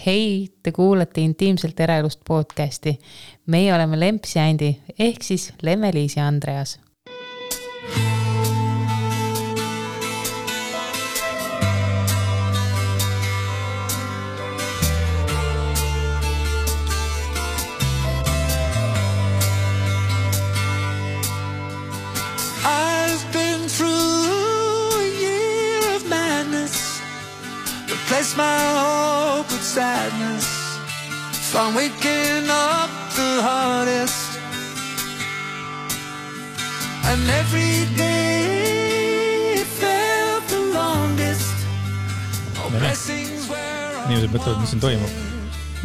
Hei, te kuulate Intiimselt eraelust podcasti. Meie oleme Lemps ja Andi, ehk siis Lemme-Liis ja Andreas. Place my hope with sadness from waking up the hardest and every day it felt the longest oh blessings were Inimesed mõtlevad, mis siin toimub.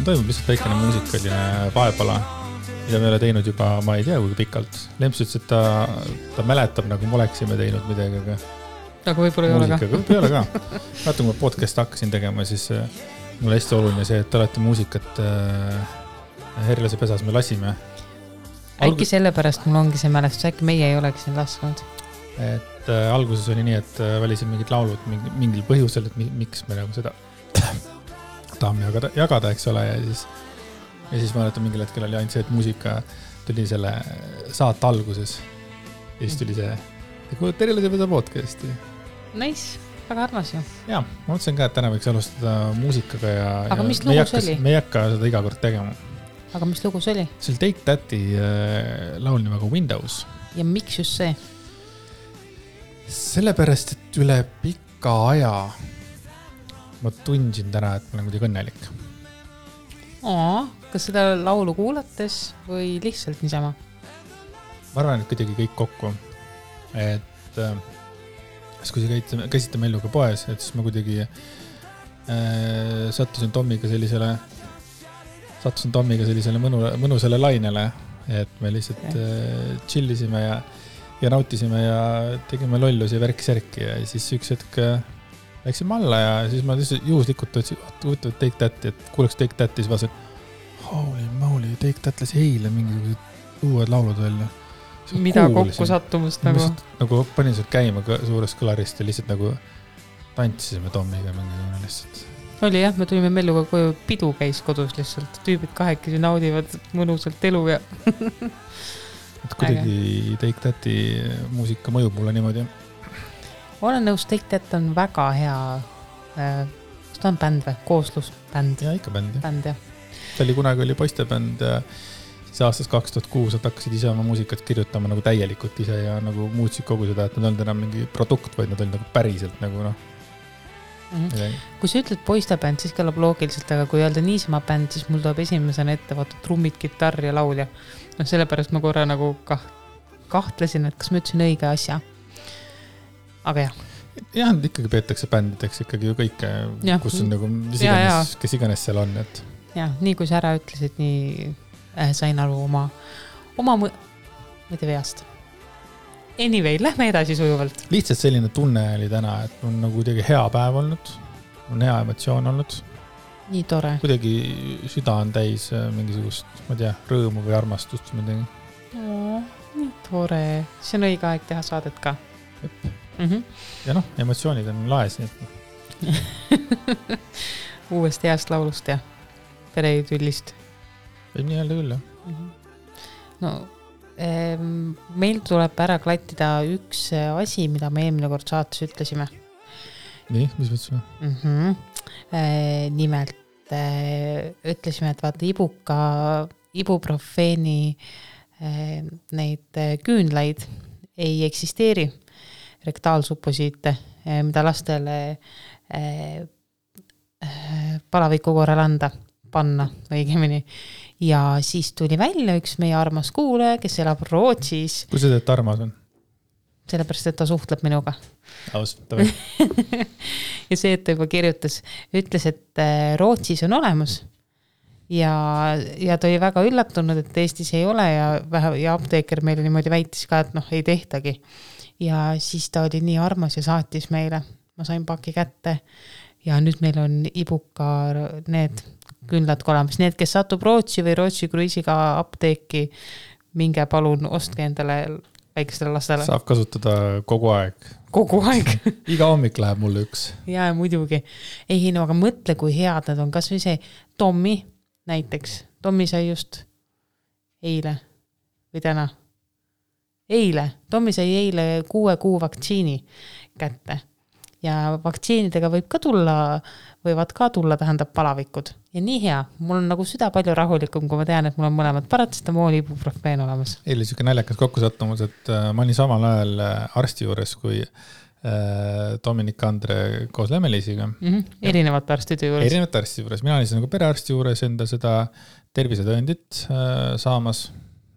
Toimub lihtsalt väikene muusikaline vaepala, mida me ei ole teinud juba, ma ei tea, kui pikalt. Lemps ütles, et ta mäletab, nagu me oleksime teinud midagi, aga võib-olla ei ole ka. Võib-olla ei ole ka. Vaata, kui ma podcast hakkasin tegema, siis mulle hästi oluline see, et alati muusikat Herlase pesas me lasime. Äkki sellepärast mul ongi see mälestus, äkki meie ei oleks siin lasknud. Et alguses oli nii, et valisin mingid laulud mingil põhjusel, et miks me nagu seda tahame jagada, eks ole. Ja siis ma mäletan, mingil hetkel oli ainult see, et muusika tuli selle saate alguses. Ja siis tuli see, et kuulad Herlase pesa podcasti. Nice, väga armas ju. Jaa, ma mõtlesin ka, et täna võiks alustada muusikaga aga mis lugu see oli? Me ei hakka seda iga kord tegema. Aga mis lugu see oli? See oli Take That'i laul nimega Windows. Ja miks just see? Sellepärast, et üle pika aja ma tundsin täna, et ma olen kuidagi õnnelik. Kas seda laulu kuulates või lihtsalt niisama? Ma arvan, et kuidagi kõik kokku. Et kui käisite Melluga poes, et siis ma kuidagi sattusin Tommiga sellisele mõnusele lainele, et me lihtsalt chillisime ja nautisime ja tegime lollusi ja värk-särki ja siis üks hetk läksime alla ja siis ma lihtsalt juhuslikult võtsin Take That'i, et kuuleks Take That'i, siis vaatasin, holy moly, Take That lasi eile mingisugused uued laulud välja. Mida kokku sattumust nagu? Nagu panin sealt käima suurest kõlarist ja lihtsalt nagu tantsisime Tommiga mingi lihtsalt. Oli jah, me tulime Melluga koju, pidu käis kodus lihtsalt. Tüübid kahekesi naudivad mõnusalt elu ja... et kuidagi Take That'i muusika mõjub mulle niimoodi. Olen nõus, Take That on väga hea... kas ta on bänd või? Kooslusbänd? Ja ikka bänd, jah. Bänd, jah. See oli kunagi oli poistebänd ja siis aastas 2006 nad hakkasid ise oma muusikat kirjutama nagu täielikult ise ja nagu muutsid kogu seda, et nad olid enam mingi produkt, vaid nad olid nagu päriselt nagu noh. Kui sa ütled poistebänd, siis kõlab loogiliselt, aga kui öelda niisama bänd, siis mul tuleb esimesena ette vaata trummid, kitarr ja laulja. No sellepärast ma korra nagu kahtlesin, et kas ma ütlesin õige asja. Aga jah. Jah, ikkagi peetakse bändideks ikkagi ju kõike, kus on nagu kes iganes seal on. Et... jah, nii kui sa ära ütlesid, nii sain aru oma mõte veast. Anyway, lähme edasi sujuvalt. Lihtsalt selline tunne oli täna, et on nagu kuidagi hea päev olnud, on hea emotsioon olnud. Nii tore. Kuidagi süda on täis mingisugust, ma tea, rõõmu või armastust. Nii tore. See on õige aeg teha saadet ka. Ja noh, emotsioonid on laes. Uuest heast laulust ja pereüllist. Võib nii öelda küll, jah. No, meil tuleb ära klattida üks asi, mida me eelmine kord saates ütlesime. Nii, mis mõtlesime? Nimelt ütlesime, et vaata ibuprofeeni neid küünlaid ei eksisteeri, rektaalsuposiite, mida lastele palaviku korral panna õigemini. Ja siis tuli välja üks meie armas kuulaja, kes elab Rootsis. Kui see teed armas on? Sellepärast, et ta suhtleb minuga. Ausalt või? Ja see, et ta juba kirjutas, ütles, et Rootsis on olemas. Ja ta oli väga üllatunud, et Eestis ei ole ja apteeker meile niimoodi väitis ka, et noh, ei tehtagi. Ja siis ta oli nii armas ja saatis meile. Ma sain paki kätte ja nüüd meil on ibuka need küünlad olemas. Need, kes satub Rootsi või Rootsi kruiisiga apteeki, minge palun ostke endale väikestele lastele. Saab kasutada kogu aeg. kogu aeg. Iga hommik läheb mulle üks. Ja muidugi. Ei, no aga mõtle, kui head nad on. Kas või see Tommi näiteks. Tommi sai just eile või täna. Tommi sai eile 6 kuu vaktsiini kätte. Ja vaktsiinidega võivad ka tulla, tähendab palavikud. Ja nii hea, mul on nagu süda palju rahulikum, kui ma tean, et mul on mõlemad paratsetamool, ibuprofeen olemas. Eile siuke naljakas kokkusattumus, et ma olin samal ajal arsti juures, kui Dominik Andre koos Lemmelisiga. Erinevate arstide juures. Erinevate arstide juures. Mina olin nagu perearsti juures enda seda tervisetõendit saamas.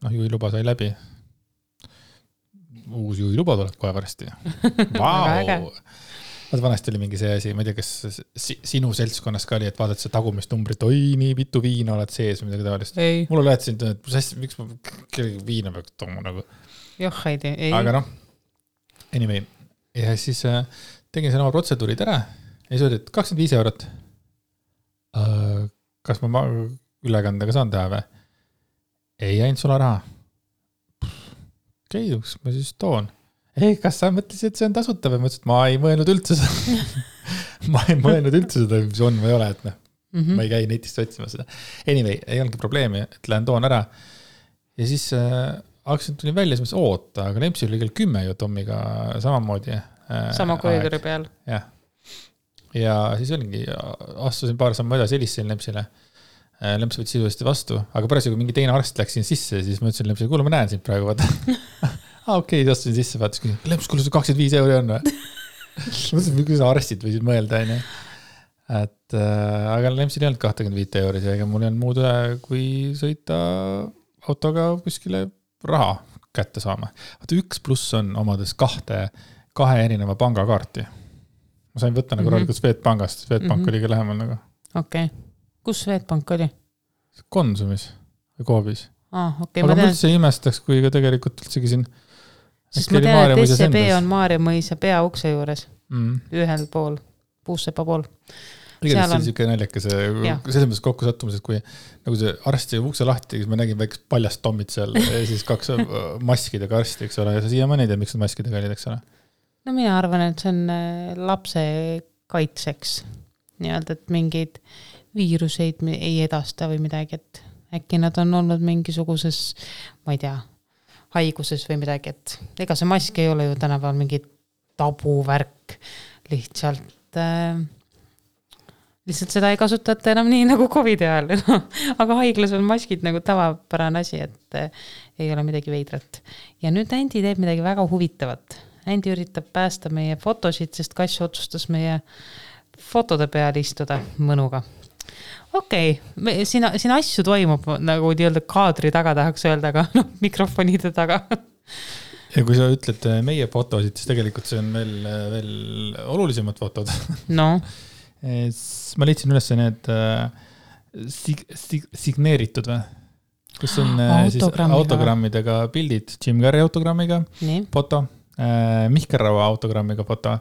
Juhiluba sai läbi. Uus juhiluba tuleb kohe varsti. Vau! Vanasti oli mingi see asi, ma ei tea, kas sinu seltskonnas ka oli, et vaadad see tagumist numbrit, oi, nii mitu viina oled sees või midagi taolist. Mul oli lähetasin, et miks ma kellegi viina peaks tooma nagu. Joh, ei. Aga anyway. Ja siis tegin selle oma protseduurid ära ja siis oli, et 25 €. Kas ma ülekandega saan teha või? Ei ainult sularaha. Okei, ma siis toon. Ei, kas sa mõtlesid, et see on tasuta või? Ma ütlesin, et ma ei mõelnud üldse seda, mis on või ei ole, et ma ei käi netist otsima seda. Anyway, ei olnudki probleemi, et lähen toon ära. Ja siis hakkasin tulin välja, siis mõtlesin, oota, aga Lempsi oli kell 10 ju Tommiga samamoodi. Sama koridori peal. Jah. Ja siis olingi, astusin paar sammu edasi, helistasin Lempsile. Lemps võttis sisuliselt vastu, aga pärast kui mingi teine arst läks siin sisse, siis ma ütlesin Lempsile, kuule, ma näen sind praegu, vaata. Okei, astusin sisse, vaatasin, Lemps, kuule, 25 € on või? Mõtlesin, kuidas arstid võisid mõelda, on ju. Aga Lempsil ei olnud 25 €, ega mul ei olnud muud üle, kui sõita autoga kuskile raha kätte saama. Vaata, 1+ on omades kahe erineva pangakaarti. Ma sain võtta nagu rollikult Swedbankast. Swedbank oli ka lähemal nagu. Okei. Kus Swedbank oli? Konsumis või Coopis. Okay, aga ma üldse imestaks, kui ka tegelikult üldsegi siin. Sest ma tean, et SCB on Maarjamõisa peaukse juures. Ühel pool, Puussepa pool. Igatahes oli siuke naljakas selles mõttes kokkusattumus, et kui nagu see arsti ukse lahti, siis ma nägin väikest paljast Tommit seal ja siis 2 maskidega arsti, eks ole, ja sa siiamaani ei tea, miks need maskidega olid, eks ole? No mina arvan, et see on lapse kaitseks. Nii-öelda, et mingeid viiruseid ei edasta või midagi, et äkki nad on olnud mingisuguses, ma ei tea, haiguses või midagi, et ega see mask ei ole ju tänapäeval mingi tabuvärk, lihtsalt seda ei kasutata enam nii nagu COVID ajal, aga haiglas on maskid nagu tavapärane asi, et ei ole midagi veidrat. Ja nüüd Andi teeb midagi väga huvitavat. Andi üritab päästa meie fotosid, sest Kass otsustas meie fotode peal istuda mõnuga. Okei, siin asju toimub nagu nii-öelda kaadri taga tahaks öelda, aga mikrofonide taga. Ja kui sa ütled meie fotosid, siis tegelikult see on veel olulisemad fotod. No. Ma leidsin üles need signeeritud või? Kus on autogrammidega pildid, Jim Carrey autogrammiga foto, Mihkel Raua autogrammiga foto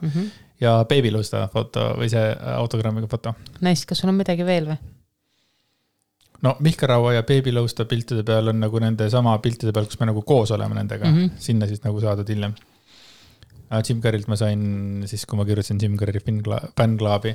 ja Baby Lusta foto või see autogrammiga foto. Nice, kas sul on midagi veel või? No Mihkel Raua ja Baby Lusta piltide peal on nagu nende sama piltide peal, kus me nagu koos oleme nendega. Sinna siis nagu saadud hiljem. Jim Carreylt ma sain siis, kui ma kirjutasin Jim Carrey fännklaabi.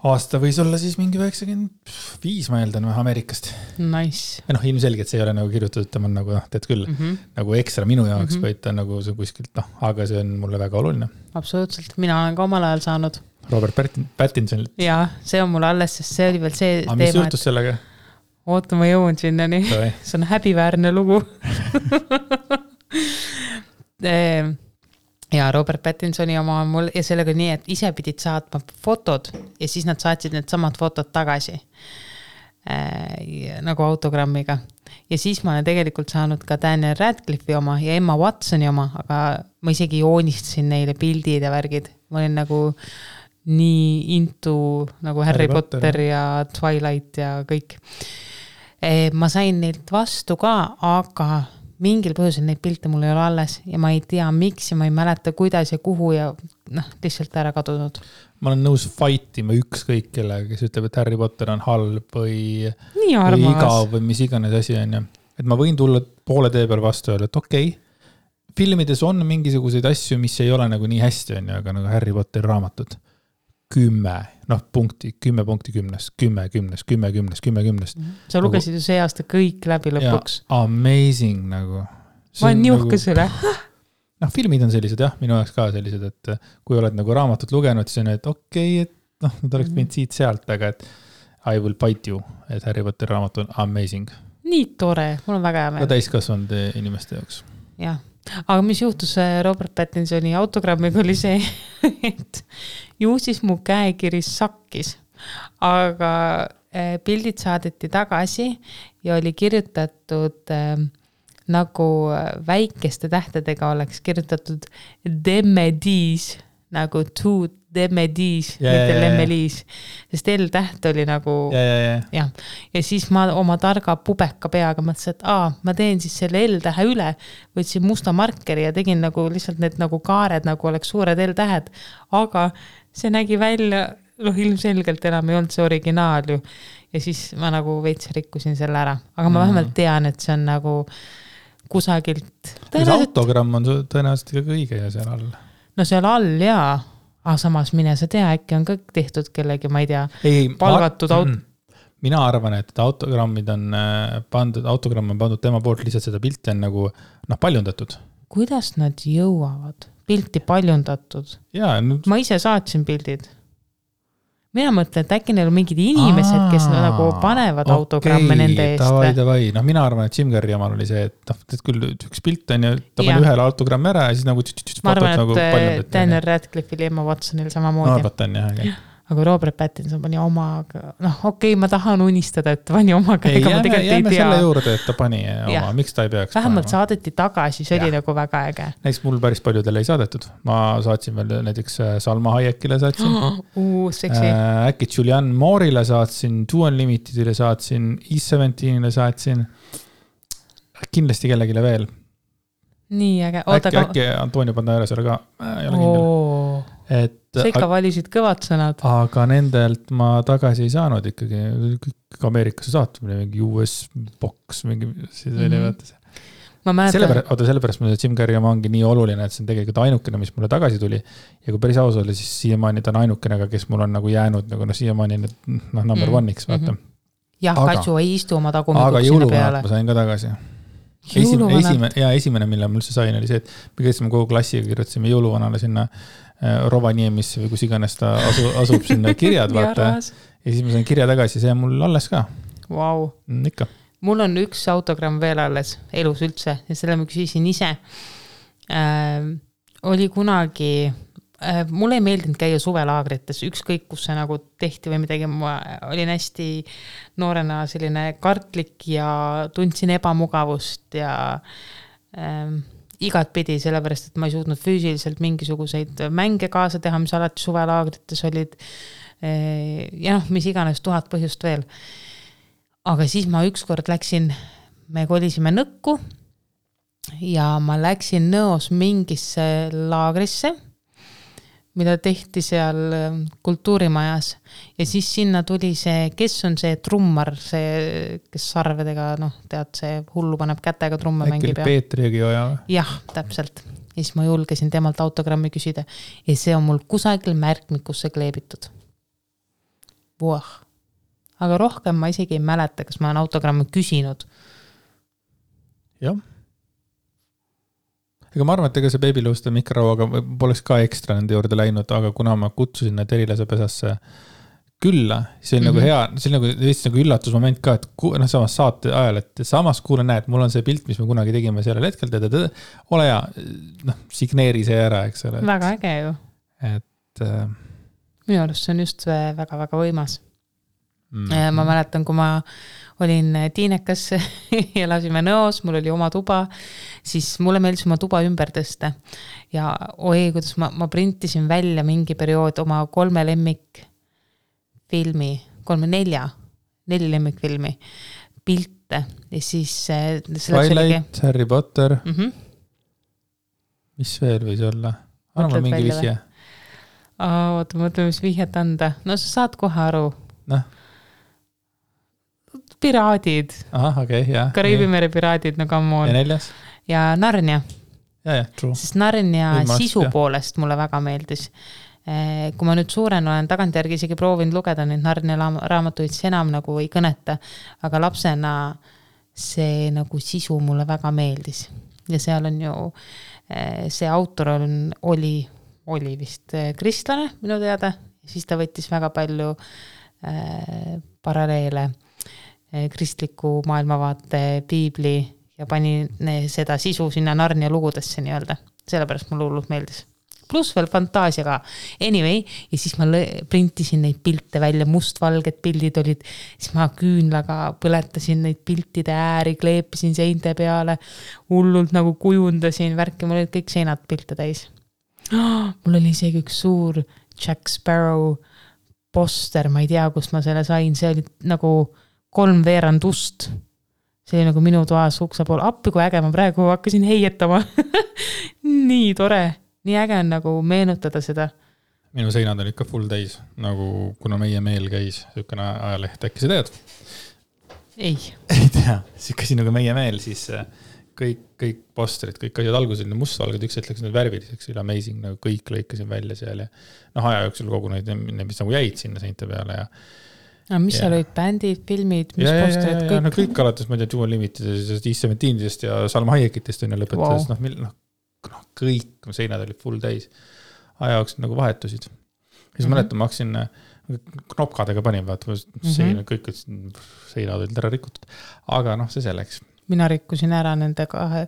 Aasta võis olla siis mingi 95, ma eeldan, Ameerikast. Nice. Ja ilmselgelt see ei ole nagu kirjutatud, tema on nagu, teed küll, nagu ekstra minu jaoks, vaid ta nagu see kuskilt, aga see on mulle väga oluline. Absoluutselt, mina olen ka omal ajal saanud. Robert Pattinsonilt. Jaa, see on mulle alles, sest see oli veel see teema. Aga mis juhtus sellega? Oota, ma jõuan sinnani. See on häbiväärne lugu. Ja Robert Pattinsoni oma mul ja sellega nii, et ise pidid saatma fotod ja siis nad saatsid need samad fotod tagasi nagu autogrammiga. Ja siis ma olen tegelikult saanud ka Daniel Radcliffe'i oma ja Emma Watsoni oma, aga ma isegi joonistasin neile pildid ja värgid. Ma olin nagu nii into nagu Harry Potter ja Twilight ja kõik. Ma sain neilt vastu ka, aga mingil põhjusel neid pilte mul ei ole alles ja ma ei tea miks ja ma ei mäleta kuidas ja kuhu ja lihtsalt ära kadunud. Ma olen nõus fightima ükskõik kellega, kes ütleb, et Harry Potter on halb või igav või mis iganes asi on. Et ma võin tulla poole tee peal vastu öelda, et okei, filmides on mingisuguseid asju, mis ei ole nagu nii hästi, on ju, aga nagu Harry Potteri raamatud 10 punkti, 10 punkti 10-st, 10 10-st, 10 10-st, 10 10-st. Sa lugesid ju see aasta kõik läbi lõpuks. Amazing nagu. Ma olen niuhkas üle. Filmid on sellised jah, minu jaoks ka sellised, et kui oled nagu raamatut lugenud, siis on, et okei, et nad oleks mind siit sealt, aga et I will bite you, et Harry Potteri raamat on amazing. Nii tore, mul on väga hea meel. Ka täiskasvanud inimeste jaoks. Jah, aga mis juhtus Robert Pattinsoni autogrammiga oli see, et ju siis mu käekiri sakkis, aga pildid saadeti tagasi ja oli kirjutatud nagu väikeste tähtedega oleks kirjutatud Demmediis, nagu to Demmediis, mitte Lemmeliis, sest L-täht oli nagu ja siis ma oma targa pubeka peaga mõtlesin, et ma teen siis selle L-tähe üle, võtsin musta markeri ja tegin nagu lihtsalt need nagu kaared, nagu oleks suured L-tähed, aga see nägi välja, ilmselgelt enam ei olnud see originaal ju ja siis ma nagu veits rikkusin selle ära, aga ma vähemalt tean, et see on nagu kusagilt. See autogramm on tõenäoliselt ka õige ja seal all. No seal all jaa, aga samas mine sa tea, äkki on kõik tehtud kellegi, ma ei tea, palgatud Mina arvan, et autogrammid on autogramm on pandud tema poolt, lihtsalt seda pilti on nagu paljundatud. Kuidas nad jõuavad? Pilti paljundatud? Ma ise saatsin pildid. Mina mõtlen, et äkki neil on mingid inimesed, kes nagu panevad autogramme nende eest. Mina arvan, et Jim Carrey omal oli see, et küll üks pilt on ja ta pani ühele autogrammi ära ja siis nagu ma arvan, et Daniel Radcliffe'il ja Emma Watsonil samamoodi. No arvat on jah. Aga Robert Pattinson pani omaga, ma tahan unistada, et pani omaga, ega ma tegelikult ei tea. Selle juurde, et ta pani oma, miks ta ei peaks vähemalt saadeti tagasi, see oli nagu väga äge. Näiteks mul päris paljudele ei saadetud. Ma saatsin veel näiteks Salma Hayekile saatsin. Seksi. Äkki Julianne Moore'ile saatsin, Two Unlimitedile saatsin, E17-ile saatsin. Kindlasti kellegile veel. Nii äge. Äkki Antonio Banderasele ka. Ei ole kindel. Sa ikka valisid kõvad sõnad. Aga nendelt ma tagasi ei saanud ikkagi. Ameerikasse saatumine, mingi US box, mingi siis oli võtta see. Sellepärast mulle Jim Carrey ongi nii oluline, et see on tegelikult ainukene, mis mulle tagasi tuli. Ja kui päris aus oli, siis siiamaani ta on ainukene, kes mul on nagu jäänud nagu siiamaani number one-iks, vaata. Jah, Katsu ei istu oma tagumikuks sinna peale. Aga jõuluvanad ma sain ka tagasi. Esimene, mille mul see sain, oli see, et me käisime kogu klassiga, kirjutasime jõuluvanale sinna Rovaniemisse või kus iganes ta asub sinna kirjad, vaata. Ja siis ma sain kirja tagasi, see on mul alles ka. Wow. Ikka. Mul on üks autogramm veel alles elus üldse ja selle ma küsisin ise. Oli kunagi, mulle ei meeldinud käia suvelaagrites, ükskõik kus see nagu tehti või midagi, ma olin hästi noorena selline kartlik ja tundsin ebamugavust ja igat pidi, sellepärast, et ma ei suutnud füüsiliselt mingisuguseid mänge kaasa teha, mis alati suvelaagrites olid ja mis iganes 1000 põhjust veel. Aga siis ma ükskord läksin, me kolisime Nõkku ja ma läksin Nõos mingisse laagrisse, mida tehti seal kultuurimajas ja siis sinna tuli see, kes on see trummar, see, kes sarvedega, tead, see hullu paneb kätega trumme mängib. Äkki Peetri Jõgioja? Jah, täpselt. Ja siis ma julgesin temalt autogrammi küsida ja see on mul kusagil märkmikusse kleebitud. Voh. Aga rohkem ma isegi ei mäleta, kas ma olen autogrammi küsinud. Jah. Ega ma arvan, et ega see Babylooste mikrorauaga poleks ka ekstra nende juurde läinud, aga kuna ma kutsusin need Erilase pesasse külla, see on nagu hea, see on nagu üllatusmoment ka, et samas saate ajal, et samas kuule näed, mul on see pilt, mis me kunagi tegime sellel hetkel, ole hea, signeeri see ära, eks ole. Väga äge ju. Et minu arust see on just väga-väga võimas. Ma mäletan, kui ma olin tiinekas ja elasime Nõos, mul oli oma tuba, siis mulle meeldis oma tuba ümber tõsta. Ja kuidas ma printisin välja mingi periood oma 3 lemmikfilmi, 4 lemmikfilmi pilte ja siis Twilight, Harry Potter. Mis veel võis olla? Arva mingi vihje. Oota, mõtleme, mis vihjet anda. No sa saad kohe aru. Piraadid. Aha, okei, jah. Kariibi mere piraadid, no come on. Ja 4? Ja Narnia. true. Sest Narnia Võimalust, sisu jah. poolest mulle väga meeldis. Kui ma nüüd suurena olen tagantjärgi isegi proovinud lugeda neid Narnia raamatuid, see enam nagu ei kõneta, aga lapsena see nagu sisu mulle väga meeldis. Ja seal on ju, see autor oli vist kristlane minu teada, siis ta võttis väga palju paralleele kristliku maailmavaate piibli ja pani seda sisu sinna Narnia lugudesse nii-öelda. Sellepärast mulle hullult meeldis. Plus veel fantaasia ka. Anyway, ja siis ma printisin neid pilte välja, mustvalged pildid olid, siis ma küünlaga põletasin neid piltide ääri, kleepisin seinte peale, hullult nagu kujundasin värki, mul olid kõik seinad pilte täis. Mul oli isegi üks suur Jack Sparrow poster, ma ei tea, kust ma selle sain, see oli nagu 3/4 ust. See oli nagu minu toas ukse pool. Appi, kui äge, ma praegu hakkasin heietama. Nii tore. Nii äge on nagu meenutada seda. Minu seinad olid ka full täis, nagu kuna meie meel käis, sükene ajaleht, äkki sa tead? Ei tea, siis nagu meie meel, siis kõik posterid, kõik asjad alguses mustvalged, üks hetk läks need värviliseks, oli amazing, nagu kõik lõikasin välja seal ja aja jooksul kogu neid, mis nagu jäid sinna seinte peale ja mis seal olid bändid, filmid, mis posterid, kõik? No kõik alates, ma ei tea, Dual Limitedest, E17-dest ja Salma Hayekitest on ja lõpetades, kõik seinad olid full täis. Aja jooksul nagu vahetusid. Siis mäletan, ma hakkasin knopkadega panin, kõik seinad olid ära rikutud. Aga see selleks. Mina rikkusin ära nende kahe,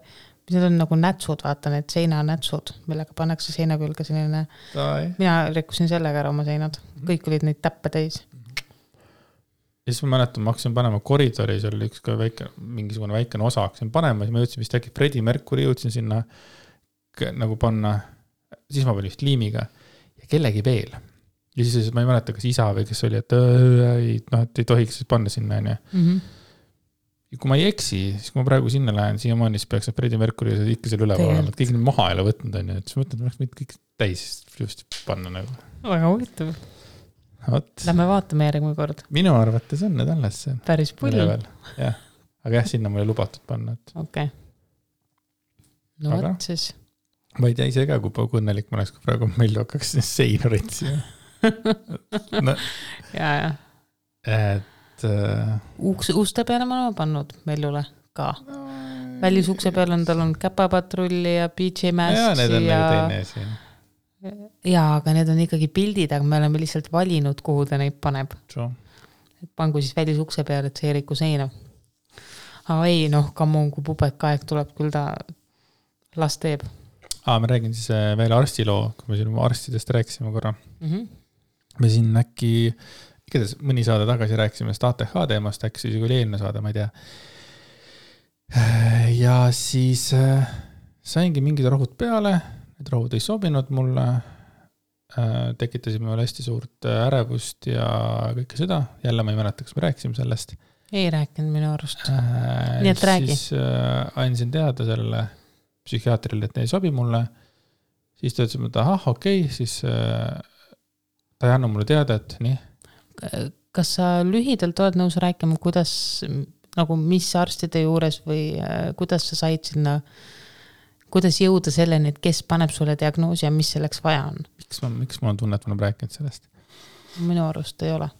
mis on nagu nätsud, vaata need seinanätsud, millega pannakse seina külge selline. Mina rikkusin sellega ära oma seinad. Kõik olid neid täppe täis. Ja siis ma mäletan, ma hakkasin panema koridori, seal oli üks ka mingisugune väikene osa, hakkasin panema, siis ma jõudsin vist äkki Freddie Mercury, jõudsin sinna nagu panna, siis ma panin vist liimiga ja kellegi veel. Ja siis ma ei mäleta, kas isa või kes oli, et ei tohiks panna sinna. Ja kui ma ei eksi, siis kui ma praegu sinna lähen, siiamaani siis peaks Freddie Mercury ikka seal üleval olema, et kõik need maha ei ole võtnud, ja siis mõtlen, et ma kõik täis just panna nagu. Väga huvitav. Lähme vaatame järgmine kord. Minu arvates on need alles see. Päris pull. Jah. Aga jah, sinna mulle lubatud panna. Okei. No aga, võt siis. Ma ei tea ise ka, kui õnnelik ma oleks, kui praegu meil hakkaks seina ritsi. Ja. Et uste peale ma olen pannud Meljule ka. Välisukse peale on tal on käpapatrulli ja PJ Masks. Ja need on nagu teine siin. Jaa, aga need on ikkagi pildid, aga me oleme lihtsalt valinud, kuhu ta neid paneb. Et pangu siis välisukse peale, et see ei riku seina. Aga ei, kammun, kui pubekaeg tuleb, küll ta las teeb. Ma räägin siis veel arstiloo, kui me siin arstidest rääkisime korra. Me siin äkki, igatahes mõni saade tagasi rääkisime ATH teemast, äkki siis oli eelne saade, ma ei tea. Ja siis saingi mingid rohud peale, need rohud ei sobinud mulle, tekitasime veel hästi suurt ärevust ja kõike seda. Jälle ma ei mäleta, kas me rääkisime sellest. Ei rääkinud minu arust. Nii et räägi. Siis andsin teada sellele psühhiaatrile, et ei sobi mulle. Siis ta ütles, et okei, siis ta ei anna mulle teada, et nii. Kas sa lühidalt oled nõus rääkima, kuidas, nagu mis arstide juures või kuidas sa said sinna, kuidas jõuda selleni, et kes paneb sulle diagnoosi ja mis selleks vaja on? Miks ma on tunne, et ma olen rääkinud sellest? Minu arust ei ole.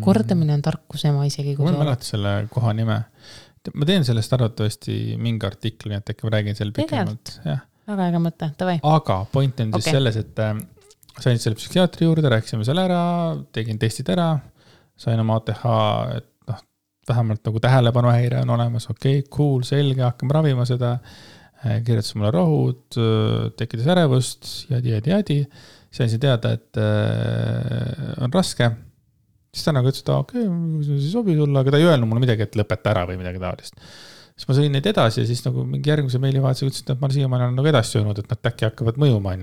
Kordamine on tarkus ema isegi. Ma mäleta selle koha nime. Ma teen sellest arvatavasti mingi artikli, et äkki ma räägin selle pikemalt. Väga äge mõte, tavai. Aga point on siis selles, et sain selle psühhiaatri juurde, rääkisime selle ära, tegin testid ära, sain oma ATH, et vähemalt nagu tähelepanuhäire on olemas, okei, cool, selge, hakkame ravima seda, kirjutas mulle rohud, tekitas ärevust, jadi. Sain teada, et on raske. Siis ta nagu ütles, et okei, see sobi sulle, aga ta ei öelnud mulle midagi, et lõpeta ära või midagi taolist. Siis ma sõin neid edasi ja siis nagu mingi järgmise meilivahetusega ütles, et ma siiamaani olen nagu edasi öelnud, et nad äkki hakkavad mõjuma,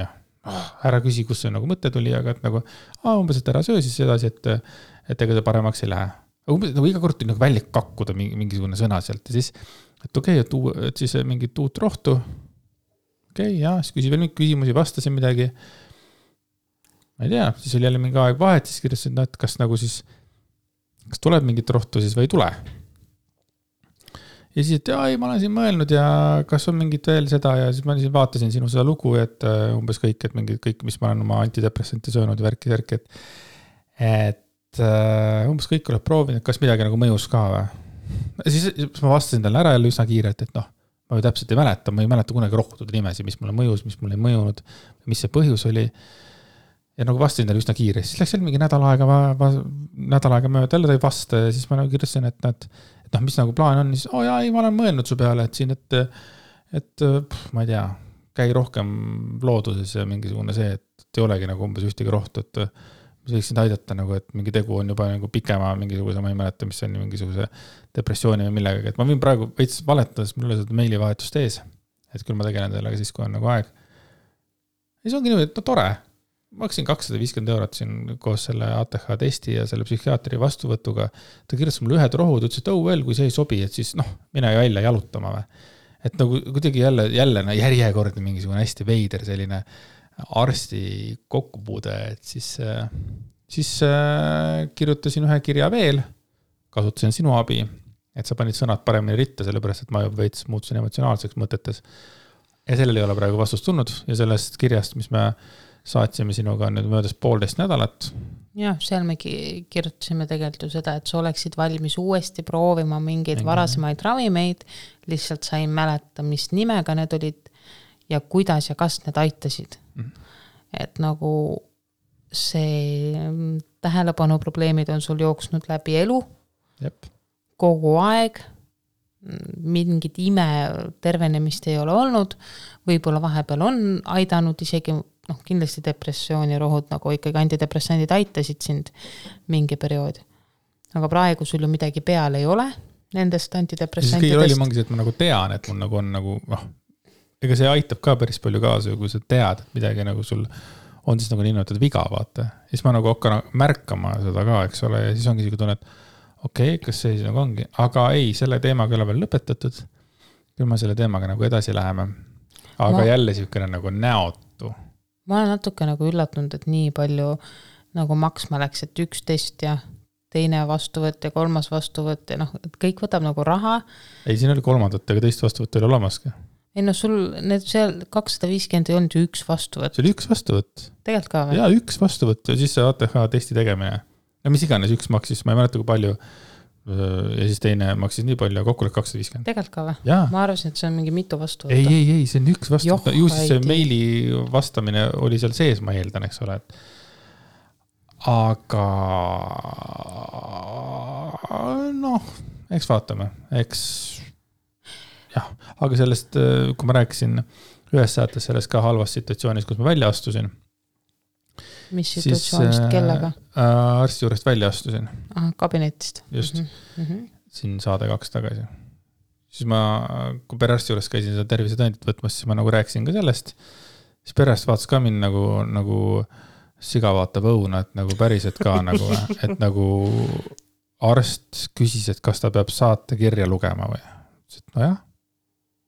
ära küsi, kus see nagu mõte tuli, aga et nagu umbes, et ära söö siis edasi, et ega see paremaks ei lähe. Umbes nagu iga kord tuli nagu välja kakkuda mingisugune sõna sealt ja siis, et okei, et siis mingit uut rohtu. Okei, siis küsi veel mingi küsimusi, vastasin midagi. Ma ei tea, siis oli jälle mingi aeg vahet, siis kirjasin, et kas nagu siis, kas tuleb mingit rohtu siis või ei tule. ja siis, et ei, ma olen siin mõelnud ja kas on mingit veel seda ja siis ma vaatasin sinu seda lugu, et umbes kõik, et mingid kõik, mis ma olen oma antidepressante söönud ja värki, et umbes kõik oled proovinud, kas midagi nagu mõjus ka või. Siis ma vastasin talle ära jälle üsna kiirelt, et ma ju täpselt ei mäleta kunagi rohtude nimesi, mis mulle mõjus, mis mulle ei mõjunud, mis see põhjus oli. Ja nagu vastasin talle üsna kiire, siis läks jälle mingi nädal aega mööda, jälle ta ei vasta ja siis ma nagu kirjasin, et mis nagu plaan on, siis ei, ma olen mõelnud su peale, et siin, et ma ei tea, käi rohkem looduses ja mingisugune see, et ei olegi nagu umbes ühtegi rohtu, et mis võiksin aidata nagu, et mingi tegu on juba nagu pikema mingisuguse, ma ei mäleta, mis on mingisuguse depressiooni või millegagi, et ma võin praegu veits valetades, mul oli seda meilivahetust ees, et küll ma tegelen sellega siis, kui on nagu aeg. Ja see ongi niimoodi, et tore. Ma maksin 250 € siin koos selle ATH testi ja selle psühhiaatri vastuvõtuga. Ta kirjutas mulle ühed rohud, ütles, et veel, kui see ei sobi, et siis mine välja jalutama või. Et nagu kuidagi jälle järjekordne mingisugune hästi veider selline arsti kokkupuude, et siis kirjutasin ühe kirja veel, kasutasin sinu abi, et sa panid sõnad paremini ritta, sellepärast, et ma juba veits muutusin emotsionaalseks mõtetes. Ja sellel ei ole praegu vastust tulnud ja sellest kirjast, mis me saatsime sinuga nüüd möödas 1,5 nädalat. Jah, seal me kirjutasime tegelikult ju seda, et sa oleksid valmis uuesti proovima mingeid varasemaid ravimeid, lihtsalt sain mäleta, mis nimega need olid ja kuidas ja kas need aitasid. Et nagu see tähelepanu probleemid on sul jooksnud läbi elu, kogu aeg, mingit ime tervenemist ei ole olnud, võib-olla vahepeal on aidanud isegi, kindlasti depressiooni rohud, nagu ikkagi antidepressandid aitasid sind mingi periood. Aga praegu sul ju midagi peal ei ole nendest antidepressantidest. Siis kõige rolli mangis, et ma nagu tean, et mul nagu on nagu, ega see aitab ka päris palju kaasa, kui sa tead, et midagi nagu sul on siis nagu niimoodi viga, vaata. Siis ma nagu hakkan märkama seda ka, eks ole, ja siis ongi isegi tunne, et kas see siis nagu ongi. Aga ei, selle teemaga ei ole veel lõpetatud. Küll ma selle teemaga nagu edasi läheme. Aga jälle siukene nagu näotu. Ma olen natuke nagu üllatunud, et nii palju nagu maksma läks, et 1 test ja teine vastuvõtt ja 3. vastuvõtt ja et kõik võtab nagu raha. Ei, siin oli 3. ega teist vastuvõtt oli olemaski. Ei sul need seal 250 ei olnud ju 1 vastuvõtt. See oli 1 vastuvõtt. Tegelikult ka või? Jaa, 1 vastuvõtt ja siis see ATH testi tegemine. Ja mis iganes 1 maksis, ma ei mäleta kui palju. Ja siis teine maksis nii palju, kokku oli 250. Tegelikult ka või? Jaa. Ma arvasin, et see on mingi mitu vastuvõtt. Ei, see on 1 vastuvõtt. Ju siis see meili vastamine oli seal sees, ma eeldan, eks ole. Aga eks vaatame. Jah, aga sellest, kui ma rääkisin ühes saates sellest ka halvast situatsioonis, kus ma välja astusin. Mis situatsioonist, kellega? Arsti juurest välja astusin. Kabinetist. Just. Siin saade 2 tagasi. Siis ma, kui perearsti juures käisin seda tervisetõendit võtmas, siis ma nagu rääkisin ka sellest. Siis perearst vaatas ka mind nagu siga vaatab õuna, et nagu päriselt ka nagu, et nagu arst küsis, et kas ta peab saate kirja lugema või. Nojah,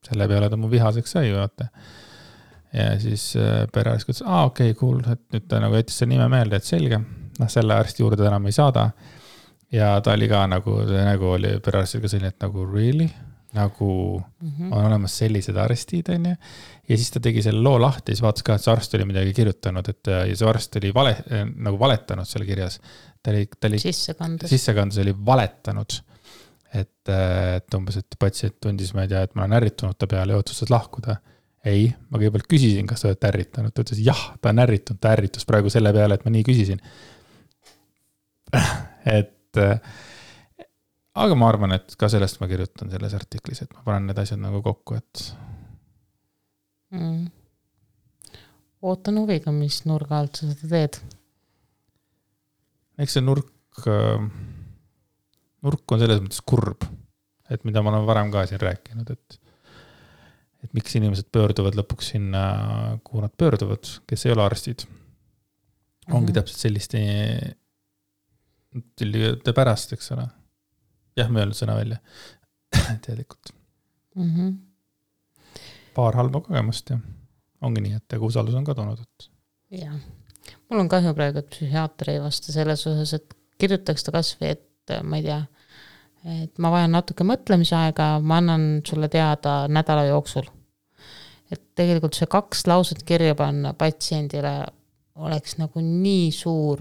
selle peale ta mu vihaseks sai, vaata. Ja siis perearst ütles, okei, cool, et nüüd ta nagu jättis selle nime meelde, et selge, selle arsti juurde enam ei saada. Ja ta oli ka nagu oli perearstil ka selline, et nagu really, nagu on olemas sellised arstid, on ju. Ja siis ta tegi selle loo lahti, siis vaatas ka, et see arst oli midagi kirjutanud, et ja see arst oli nagu valetanud selle kirjas. Ta oli sissekandus oli valetanud, et umbes, et patsient tundis, ma ei tea, et ma olen ärritunud ta peale ja otsustas lahkuda. Ei, ma kõigepealt küsisin, kas ta oled ärritanud. Ta ütles, jah, ta on ärritunud, ta ärritus praegu selle peale, et ma nii küsisin. Aga ma arvan, et ka sellest ma kirjutan selles artiklis, et ma panen need asjad nagu kokku, et Ootan huviga, mis nurga alt sa seda teed. Eks see nurk on selles mõttes kurb, et mida ma olen varem ka siin rääkinud, et miks inimesed pöörduvad lõpuks sinna, kuhu nad pöörduvad, kes ei ole arstid. Ongi täpselt selliste pärast, eks ole. Jah, me öelnud sõna välja. Teadlikult. Paar halba kogemust ja ongi nii, et usaldus on kadunud. Jah. Mul on kahju praegu, et psühhiaater ei vasta selles osas, et kirjutaks ta kas või, et ma ei tea, et ma vajan natuke mõtlemisaega, ma annan sulle teada nädala jooksul. Et tegelikult see 2 lauset kirja panna patsiendile oleks nagu nii suur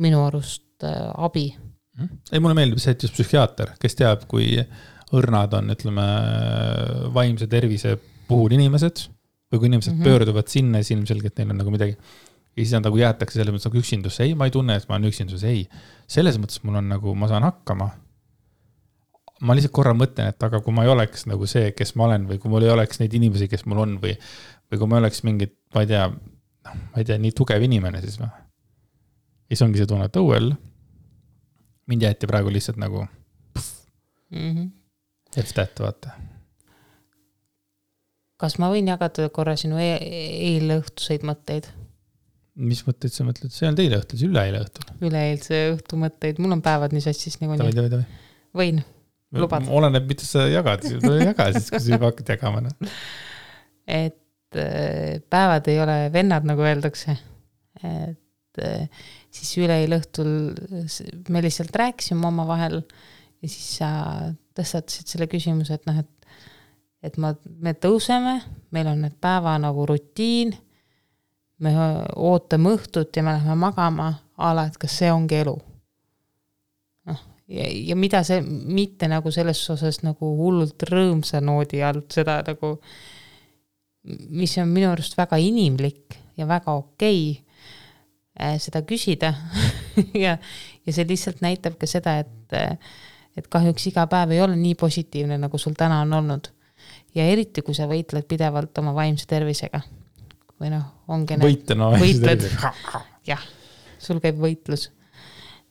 minu arust abi. Ei, mulle meeldib see, et just psühhiaater, kes teab, kui õrnad on, ütleme, vaimse tervise puhul inimesed või kui inimesed pöörduvad sinna ja ilmselgelt neil on nagu midagi ja siis nad nagu jäetakse selles mõttes nagu üksindusse. Ei, ma ei tunne, et ma olen üksinduses. Ei, selles mõttes mul on nagu, ma saan hakkama. Ma lihtsalt korra mõtlen, et aga kui ma ei oleks nagu see, kes ma olen või kui mul ei oleks neid inimesi, kes mul on või kui ma oleks mingid, ma ei tea, nii tugev inimene siis või. Ja siis ongi see tunne, et õuel mind jäeti praegu lihtsalt nagu et vaata. Kas ma võin jagada korra sinu eile õhtuseid mõtteid? Mis mõtteid sa mõtled? See on teile õhtul, see üleeile õhtul. Üleeilse õhtu mõtteid. Mul on päevad nii sassis nagu nii. Tavai. Võin, lubad. Oleneb, mida sa jagad. Jaga siis, kui sa juba hakkad jagama. Et päevad ei ole vennad, nagu öeldakse. Et siis üleeile õhtul me lihtsalt rääkisime oma vahel ja siis sa tõstatasid selle küsimuse, et me tõuseme, meil on need päeva nagu rutiin, me ootame õhtut ja me läheme magama ala, et kas see ongi elu. Ja mida see, mitte nagu selles osas nagu hullult rõõmsa noodi alt, seda nagu, mis on minu arust väga inimlik ja väga okei seda küsida ja see lihtsalt näitab ka seda, et kahjuks iga päev ei ole nii positiivne, nagu sul täna on olnud. Ja eriti, kui sa võitled pidevalt oma vaimse tervisega. Või ongi võitled. Jah, sul käib võitlus.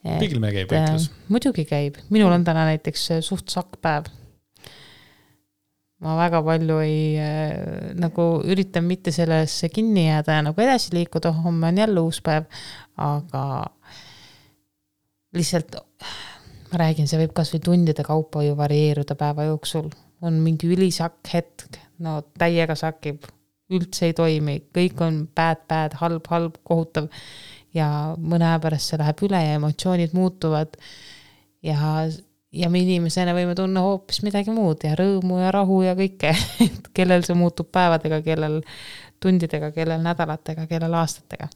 Kõigil meil käib võitlus. Muidugi käib. Minul on täna näiteks suht sakpäev. Ma väga palju nagu üritan mitte sellesse kinni jääda ja nagu edasi liikuda, homme on jälle uus päev, aga lihtsalt ma räägin, see võib kas või tundide kaupa ju varieeruda päeva jooksul. On mingi ülisakk hetk, täiega sakib, üldse ei toimi, kõik on bad, halb, kohutav ja mõne aja pärast see läheb üle ja emotsioonid muutuvad ja me inimesena võime tunna hoopis midagi muud ja rõõmu ja rahu ja kõike, kellel see muutub päevadega, kellel tundidega, kellel nädalatega, kellel aastatega.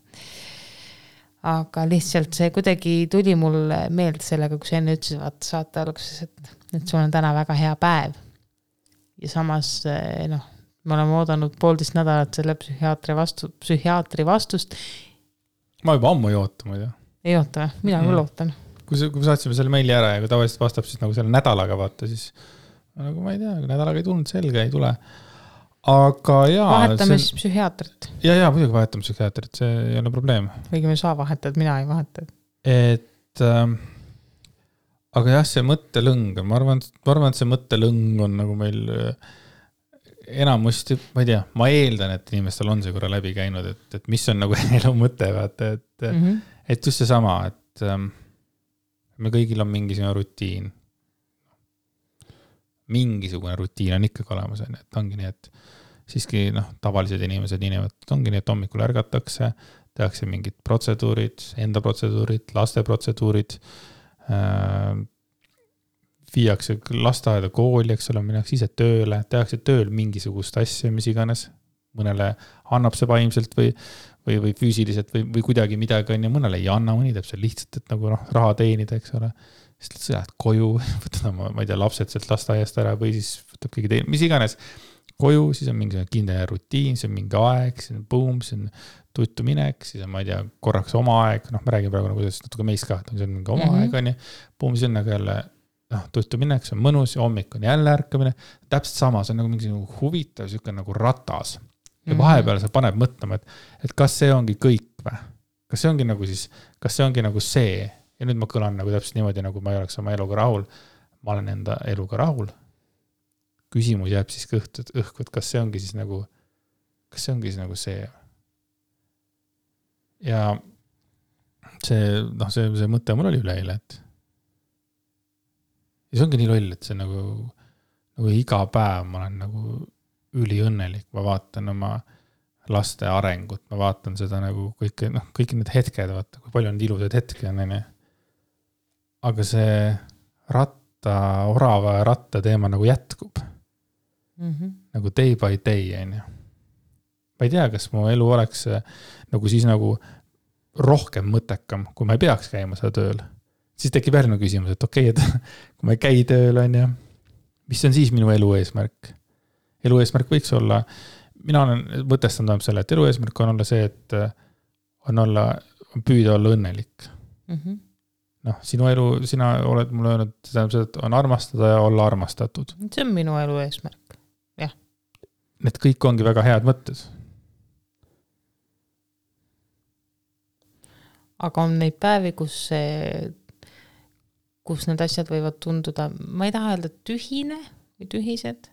Aga lihtsalt see kuidagi tuli mul meelde sellega, kui sa enne ütlesid saate alguses, et sul on täna väga hea päev. Ja samas, me oleme oodanud 1,5 nädalat selle psühhiaatri vastust. Ma juba ammu ei oota, ma ei tea. Ei oota, mina küll ootan. Kui saatsime selle meili ära ja kui tavaliselt vastab siis nagu selle nädalaga vaata, siis nagu ma ei tea, nädalaga ei tulnud selge, ei tule. Aga jaa. Vahetame siis psühhiaatrit. Ja, muidugi vahetame psühhiaatrit, see ei ole probleem. Võigi me saa vahetad, mina ei vahetad. Aga jah, see mõttelõng, ma arvan, et see mõttelõng on nagu meil enamusti, ma ei tea, ma eeldan, et inimestel on see korra läbi käinud, et mis on nagu elu mõte, vaata, et just see sama, et me kõigil on mingisugune rutiin. Mingisugune rutiin on ikkagi olemas, et ongi nii, et siiski tavalised inimesed ongi nii, et hommikul ärgatakse, tehakse mingid protseduurid, enda protseduurid, laste protseduurid, viiakse lasteaeda kooli, eks ole, minnakse ise tööle, tehakse tööl mingisugust asja, mis iganes, mõnele annab see vaimselt või füüsiliselt või kuidagi midagi on ja mõnele ei anna, mõni teeb see lihtsalt, et nagu raha teenida, eks ole, siis sa lähed koju, võtad ma ei tea, lapsed sealt lasteaiast ära või siis võtab keegi teine, mis iganes koju, siis on mingi kindel rutiin, see on mingi aeg, see on boom, see on tuttu minek, siis on, ma ei tea, korraks oma aeg, me räägime praegu nagu natuke meist ka, see on mingi oma aeg, on ja boom, see on nagu jälle tuttu minek, see on mõnus ja hommik on jälle ärkamine, täpselt sama, see on nagu mingi huvitav, siuke nagu ratas ja vahepeal see paneb mõtlema, et kas see ongi kõik või? Kas see ongi nagu siis, kas see ongi nagu see ja nüüd ma kõlan nagu täpselt niimoodi, nagu ma ei oleks oma eluga rahul, ma olen enda eluga rahul. Küsimus jääb siis õhku, et kas see ongi siis nagu see. Ja see mõte mul oli üleeile, et ja see ongi nii loll, et see nagu iga päev ma olen nagu üliõnnelik, ma vaatan oma laste arengut, ma vaatan seda nagu kõik need hetked, vaata, kui palju on ilusad hetki on, aga see orava ja ratta teema nagu jätkub. Nagu day by day, on ju. Ma ei tea, kas mu elu oleks nagu siis nagu rohkem mõttekam, kui ma ei peaks käima seda tööl. Siis tekib järgmine küsimus, et okei, et kui ma ei käi tööl, on ju, mis on siis minu elu eesmärk? Elu eesmärk võiks olla, mina olen mõtestanud selle, et elu eesmärk on olla see, et on püüda olla õnnelik. Noh, sinu elu, sina oled mulle öelnud, et on armastada ja olla armastatud. See on minu elu eesmärk, jah. Need kõik ongi väga head mõtted. Aga on neid päevi, kus need asjad võivad tunduda, ma ei taha öelda tühine või tühised.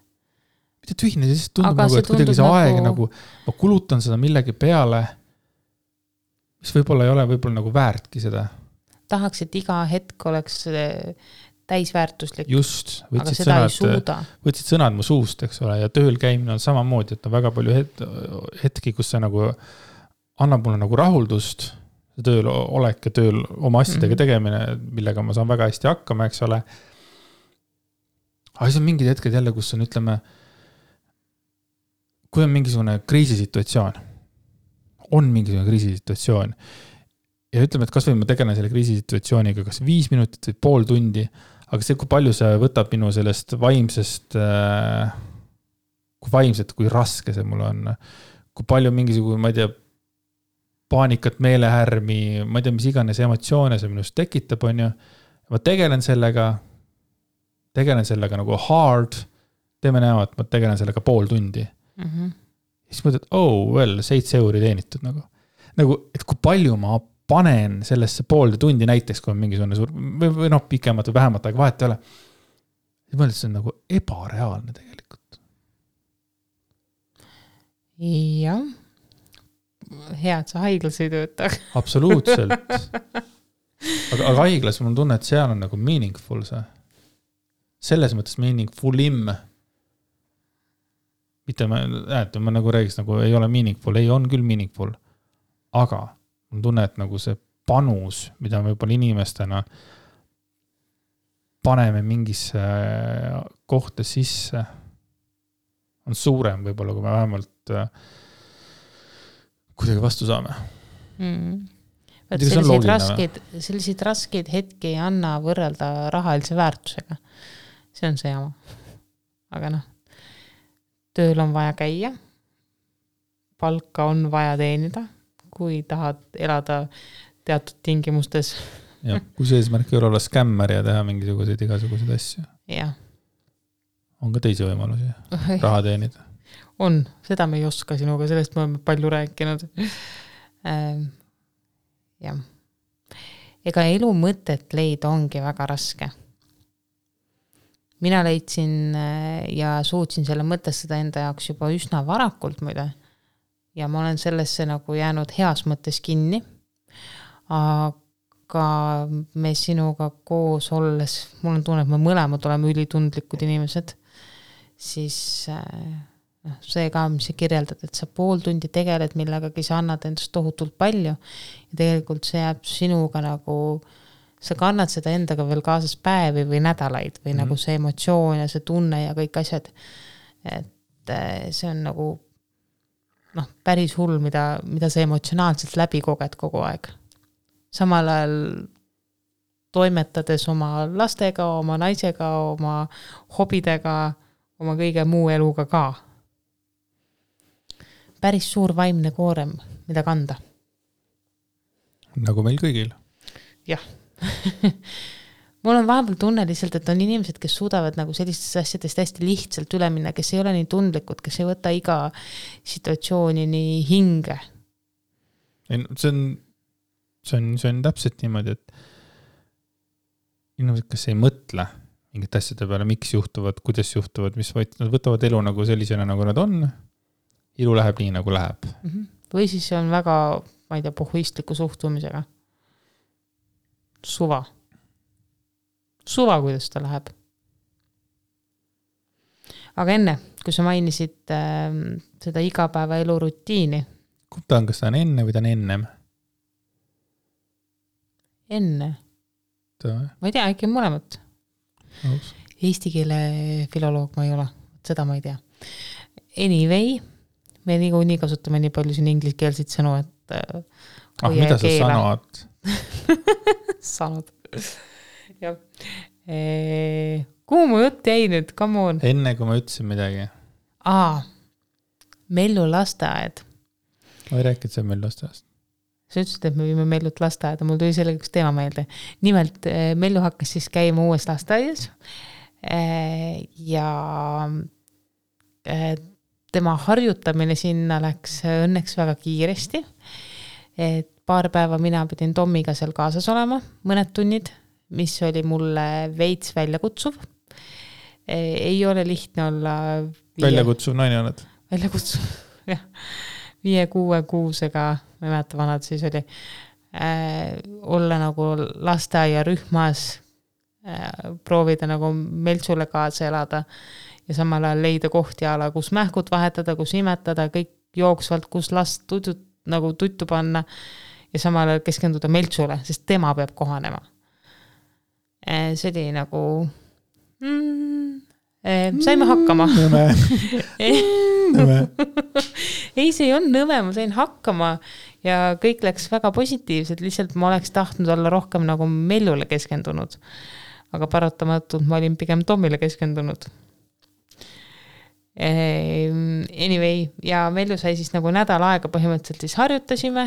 Mitte tühine, siis tundub nagu, et kuidagi see aeg nagu, ma kulutan seda millegi peale, mis võib-olla ei ole võib-olla nagu väärtki seda. Tahaks, et iga hetk oleks täisväärtuslik. Just, aga seda ei suuda. Võtsid sõnad mu suust, eks ole, ja tööl käimine on samamoodi, et on väga palju hetki, kus see nagu annab mulle nagu rahuldust, tööl olek ja tööl oma asjadega tegemine, millega ma saan väga hästi hakkama, eks ole. Aga siis on mingid hetked jälle, kus on, ütleme, kui on mingisugune kriisisituatsioon, ja ütleme, et kas või ma tegelen selle kriisisituatsiooniga kas 5 minutit või pool tundi, aga see, kui palju see võtab minu sellest vaimsest, kui raske see mul on, kui palju mingisugune, ma ei tea, paanikat, meelehärmi, ma ei tea, mis iganes emotsioone see minust tekitab, on ju. Ma tegelen sellega nagu hard, teeme näema, et ma tegelen sellega pool tundi. Siis mõtled, et 7 euri teenitud nagu, et kui palju ma panen sellesse poolde tundi näiteks, kui on mingisugune suur, või pikemat või vähemat aega vahet ei ole. Siis mõtled, see on nagu ebareaalne tegelikult. Jah. Hea, et sa haiglas ei tööta. Absoluutselt. Aga haiglas mul tunne, et seal on nagu meaningful see. Selles mõttes meaningfulim. Mitte ma nagu räägiks, nagu ei ole meaningful, ei on küll meaningful. Aga mul tunne, et nagu see panus, mida me võib-olla inimestena paneme mingisse kohta sisse, on suurem võib-olla, kui me vähemalt kuidagi vastu saame. Selliseid raskeid hetki ei anna võrrelda rahalise väärtusega. See on see jama. Aga tööl on vaja käia, palka on vaja teenida, kui tahad elada teatud tingimustes. Ja, kui see eesmärk ei ole olla skämmer ja teha mingisuguseid igasuguseid asju. Ja. On ka teisi võimalusi raha teenida. On, seda me ei oska sinuga, sellest me oleme palju rääkinud. Jah. Ega elu mõtet leida ongi väga raske. Mina leidsin ja suutsin selle mõtestada enda jaoks juba üsna varakult muide. Ja ma olen sellesse nagu jäänud heas mõttes kinni. Aga me sinuga koos olles, mul on tunne, et me mõlemad oleme ülitundlikud inimesed, siis see ka, mis sa kirjeldad, et sa pool tundi tegeled millegagi, sa annad endast tohutult palju ja tegelikult see jääb sinuga nagu, sa kannad seda endaga veel kaasas päevi või nädalaid või nagu see emotsioon ja see tunne ja kõik asjad, et see on nagu päris hull, mida sa emotsionaalselt läbi koged kogu aeg. Samal ajal toimetades oma lastega, oma naisega, oma hobidega, oma kõige muu eluga ka. Päris suur vaimne koorem, mida kanda. Nagu meil kõigil. Jah. Mul on vahepeal tunne lihtsalt, et on inimesed, kes suudavad nagu sellistest asjadest hästi lihtsalt üle minna, kes ei ole nii tundlikud, kes ei võta iga situatsiooni nii hinge. See on täpselt niimoodi, et inimesed, kes ei mõtle mingit asjade peale, miks juhtuvad, kuidas juhtuvad, mis nad võtavad elu nagu sellisena, nagu nad on. Ilu läheb nii, nagu läheb. Või siis see on väga, ma ei tea, pohhuistliku suhtumisega. Suva, kuidas ta läheb. Aga enne, kui sa mainisid seda igapäeva elu rutiini. Ta on, kas ta on enne või ta on ennem? Enne. Ma ei tea, äkki mõlemat. Eesti keele filoloog ma ei ole, seda ma ei tea. Anyway, me niikuinii kasutame nii palju siin ingliskeelseid sõnu, et mida sa sanad? Sanud. Jah. Kuhu mu jutt jäi nüüd? Come on. Enne kui ma ütlesin midagi. Mellu lasteaed. Ma ei rääkinud see Mellu lasteaedast. Sa ütlesid, et me viime Mellut lasteaeda, mul tuli sellega üks teema meelde. Nimelt, Mellu hakkas siis käima uues lasteaias ja tema harjutamine sinna läks õnneks väga kiiresti. Et paar päeva mina pidin Tommiga seal kaasas olema, mõned tunnid, mis oli mulle veits väljakutsuv. Ei ole lihtne olla... Väljakutsuv naine oled? Väljakutsuv, jah. 5-6 kuusega, ma ei mäleta vanad siis oli, olla nagu lasteaia rühmas, proovida nagu Meltsule kaasa elada ja samal ajal leida kohti ala, kus mähkud vahetada, kus imetada, kõik jooksvalt, kus last nagu tuttu panna ja samal ajal keskenduda Meltsule, sest tema peab kohanema. See oli nagu... saime hakkama. Nõme. Ei, see on nõme, ma sain hakkama ja kõik läks väga positiivselt, lihtsalt ma oleks tahtnud olla rohkem nagu Mellule keskendunud. Aga paratamatult ma olin pigem Tommile keskendunud. Anyway, ja Mellu sai siis nagu nädal aega põhimõtteliselt siis harjutasime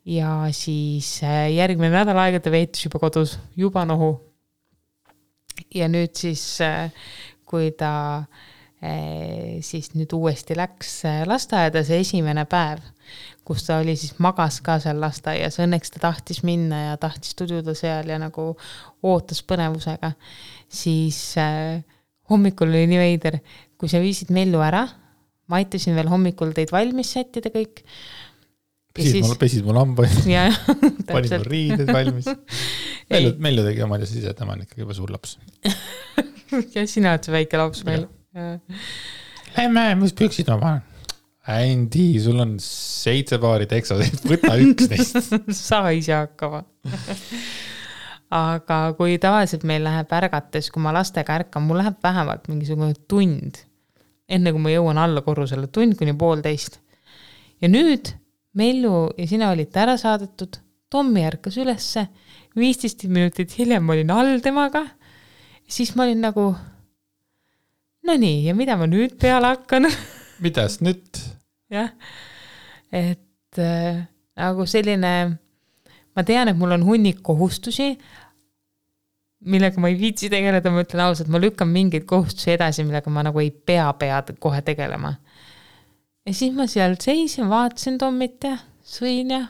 ja siis järgmine nädal aega ta veetis juba kodus, juba nohu. Ja nüüd siis, kui ta siis nüüd uuesti läks lasteaeda, see esimene päev, kus ta oli siis magas ka seal lasteaias, õnneks ta tahtis minna ja tahtis tududa seal ja nagu ootas põnevusega, siis hommikul oli nii veider, kui sa viisid Mellu ära, ma aitasin veel hommikul teid valmis sättida kõik. Pesid mul hambaid, ja, panin mul riided valmis. Mellu tegi omad ja siis tema on ikkagi juba suur laps. Ja sina oled see väike laps meil. Lähme, mis püksid ma panen? Ändi, sul on 7 paari teksasid, võta üks neist. Sa ise hakkama. Aga kui tavaliselt meil läheb ärgates, kui ma lastega ärkan, mul läheb vähemalt mingisugune tund, enne kui ma jõuan alla korrusele, tund kuni 1,5. Ja nüüd Mellu ja sina olite ära saadetud, Tommi ärkas ülesse, 15 minutit hiljem ma olin all temaga, siis ma olin nagu, no nii, ja mida ma nüüd peale hakkan? Midas nüüd? Jah, et nagu selline, ma tean, et mul on hunnik kohustusi, millega ma ei viitsi tegeleda, ma ütlen ausalt, ma lükkan mingeid kohustusi edasi, millega ma nagu ei pea kohe tegelema. Ja siis ma seal seisin, vaatasin Tommit ja sõin ja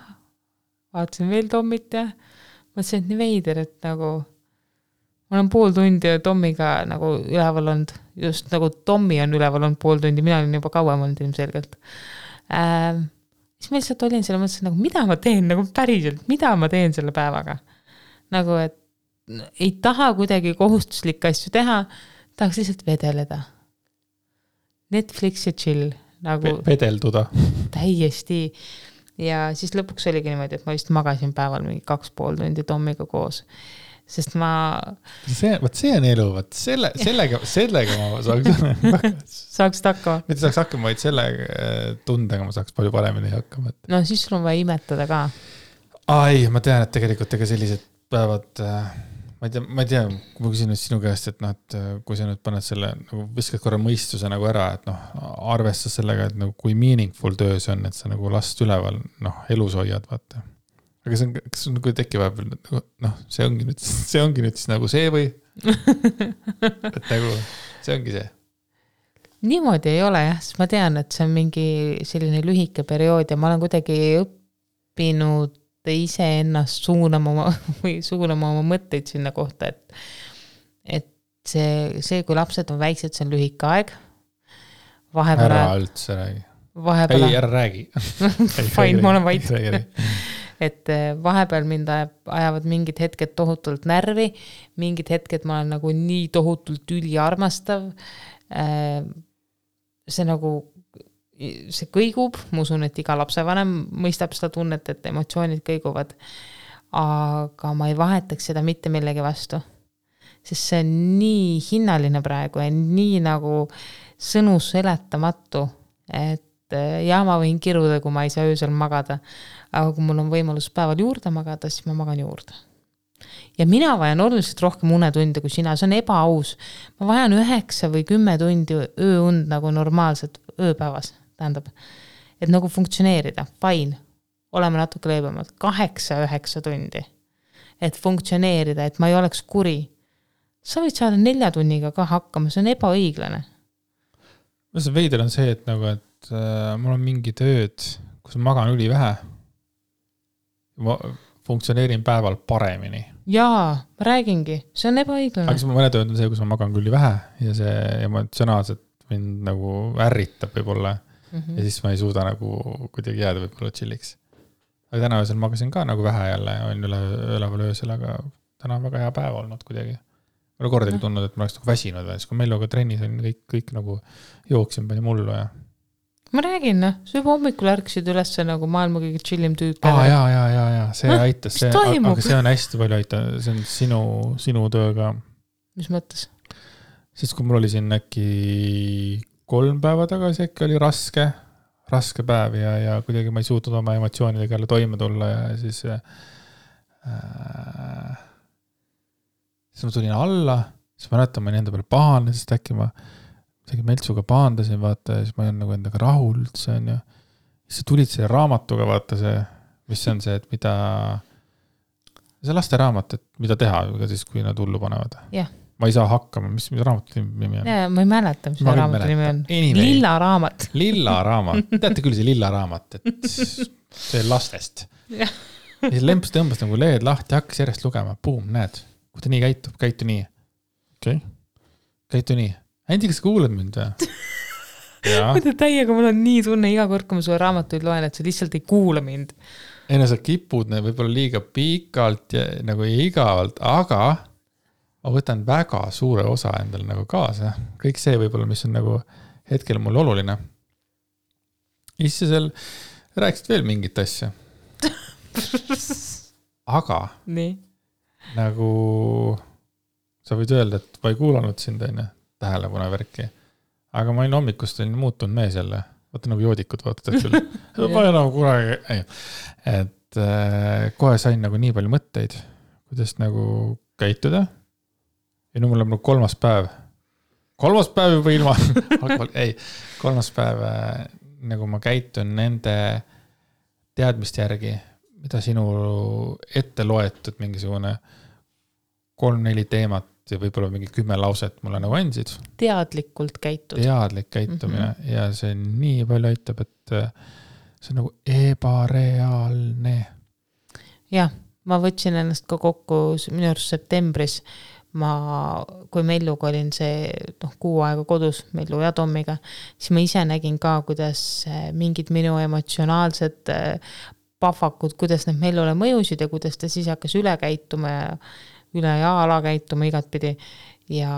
vaatasin veel Tommit ja mõtlesin, et nii veider, et nagu ma olen 0,5 tundi Tommiga nagu üleval olnud, just nagu Tommi on üleval olnud 0,5 tundi, mina olin juba kauem olnud ilmselgelt. Siis ma lihtsalt olin selle mõttes, nagu mida ma teen, nagu päriselt, mida ma teen selle päevaga. Nagu, et ei taha kuidagi kohustuslikke asju teha, tahaks lihtsalt vedeleda. Netflix ja chill. Nagu vedelduda. Täiesti. Ja siis lõpuks oligi niimoodi, et ma vist magasin päeval mingi 2,5 tundi Tommiga koos. Sest ma... See on elu, sellega ma saaks hakkama. Mitte saaks hakkama, vaid selle tundega ma saaks palju paremini hakkama. No siis sul on vaja imetada ka. Ai, ma tean, et tegelikult ega sellised päevad... Ma ei tea, kui ma küsin nüüd sinu käest, et, et kui sa nüüd paned selle, nagu viskad korra mõistuse nagu ära, et arvestas sellega, et nagu kui meaningful töö see on, et sa nagu last üleval elus hoiad, vaata. Aga kas on nagu tekki vahepeal, see ongi nüüd siis nagu see või? Et nagu, see ongi see. Niimoodi ei ole jah, sest ma tean, et see on mingi selline lühike periood ja ma olen kuidagi õppinud ise ennast suunama oma mõtteid sinna kohta, et see, kui lapsed on väiksed, see on lühike aeg. Ära üldse räägi. Ei, ära räägi. Fine, ma olen vait. Et vahepeal mind ajavad mingid hetked tohutult närvi, mingid hetked ma olen nagu nii tohutult üliarmastav. See nagu see kõigub, ma usun, et iga lapsevanem mõistab seda tunnet, et emotsioonid kõiguvad, aga ma ei vahetaks seda mitte millegi vastu. sest see on nii hinnaline praegu ja nii nagu sõnu seletamatu, et ja ma võin kiruda, kui ma ei saa öösel magada, aga kui mul on võimalus päeval juurde magada, siis ma magan juurde. Ja mina vajan oluliselt rohkem unetunde kui sina, see on ebaaus. Ma vajan 9 või 10 tundi ööund nagu normaalselt ööpäevas, tähendab, et nagu funktsioneerida, fine, oleme natuke leebemalt, 8-9 tundi, et funktsioneerida, et ma ei oleks kuri. Sa võid saada 4 tunniga ka hakkama, see on ebaõiglane. See veider on see, et nagu, et mul on mingi tööd, kus magan üli vähe. Ma funktsioneerin päeval paremini. Jaa, ma räägingi, see on ebaõiglane. Aga mõne tööd on see, kus ma magan küll vähe ja see emotsionaalselt mind nagu ärritab võib-olla ja siis ma ei suuda nagu kuidagi jääda võib-olla chilliks. Aga täna öösel magasin ka nagu vähe jälle, on üleval öösel, aga täna on väga hea päev olnud kuidagi. Ma olen kordagi tundnud, et ma oleks nagu väsinud veel, siis kui Melloga trennis on kõik nagu jooksin pani mullu ja ma räägin, sa juba hommikul ärksid üles nagu maailma kõige chillim tüüp. Jaa, see aitas. Aga see on hästi palju aitab, see on sinu töö ka. Mis mõttes? Siis kui mul oli siin äkki 3 päeva tagasi, äkki oli raske päev ja kuidagi ma ei suutnud oma emotsioonidega jälle toime tulla ja siis ma tulin alla, siis ma näitan, ma enda peale pahane, sest äkki ma Meltsuga paandasin, vaata, ja siis ma olen nagu endaga rahul üldse on ja siis sa tulid selle raamatuga, vaata see, mis see on see, et mida see laste raamat, et mida teha, siis kui nad hullu panevad. Yeah. Ma ei saa hakkama, mis raamatu nimi on? Ma ei mäleta, mis raamatu nimi on. Lilla raamat. Lilla raamat. Teate küll see lilla raamat, et see lastest. Ja siis lemps tõmbas nagu lehed lahti, hakkas järjest lugema. Boom, näed, kui ta nii käitub, käitu nii. Okay. Käitu nii. Andi, kas kuuled mind? Mõtle täiega, mul on nii tunne iga kord, kui ma sulle raamatuid loen, et sa lihtsalt ei kuula mind. Ei, no sa kipud võib-olla liiga pikalt ja nagu igavalt, aga ma võtan väga suure osa endal nagu kaasa. Kõik see võib-olla, mis on nagu hetkel mul oluline. Isse seal rääkisid veel mingit asja. Aga nii. Nagu sa võid öelda, et ma ei kuulanud sind enne tähelepanu värki. Aga ma olin hommikust muutunud mees jälle. Vaata nagu joodikud vaatad küll. Ma ei nagu kuragi. Et kohe sain nagu nii palju mõtteid, kuidas nagu käituda. Ja nüüd mul on 3. päev. 3. päev juba ilma. Ei, 3. päev nagu ma käitun nende teadmiste järgi, mida sinu ette loetud mingisugune 3-4 teemat ja võib-olla mingi 10 lauset mulle nagu andsid. Teadlikult käitud. Teadlik käitumine ja see nii palju aitab, et see on nagu ebareaalne. Jah, ma võtsin ennast ka kokku minu arust septembris. Kui Melluga olin see 6 aega kodus, Mellu ja Tommiga, siis ma ise nägin ka, kuidas mingid minu emotsionaalsed pahvakud, kuidas need Mellule mõjusid ja kuidas ta siis hakkas üle käituma üle ja ala käituma igatpidi ja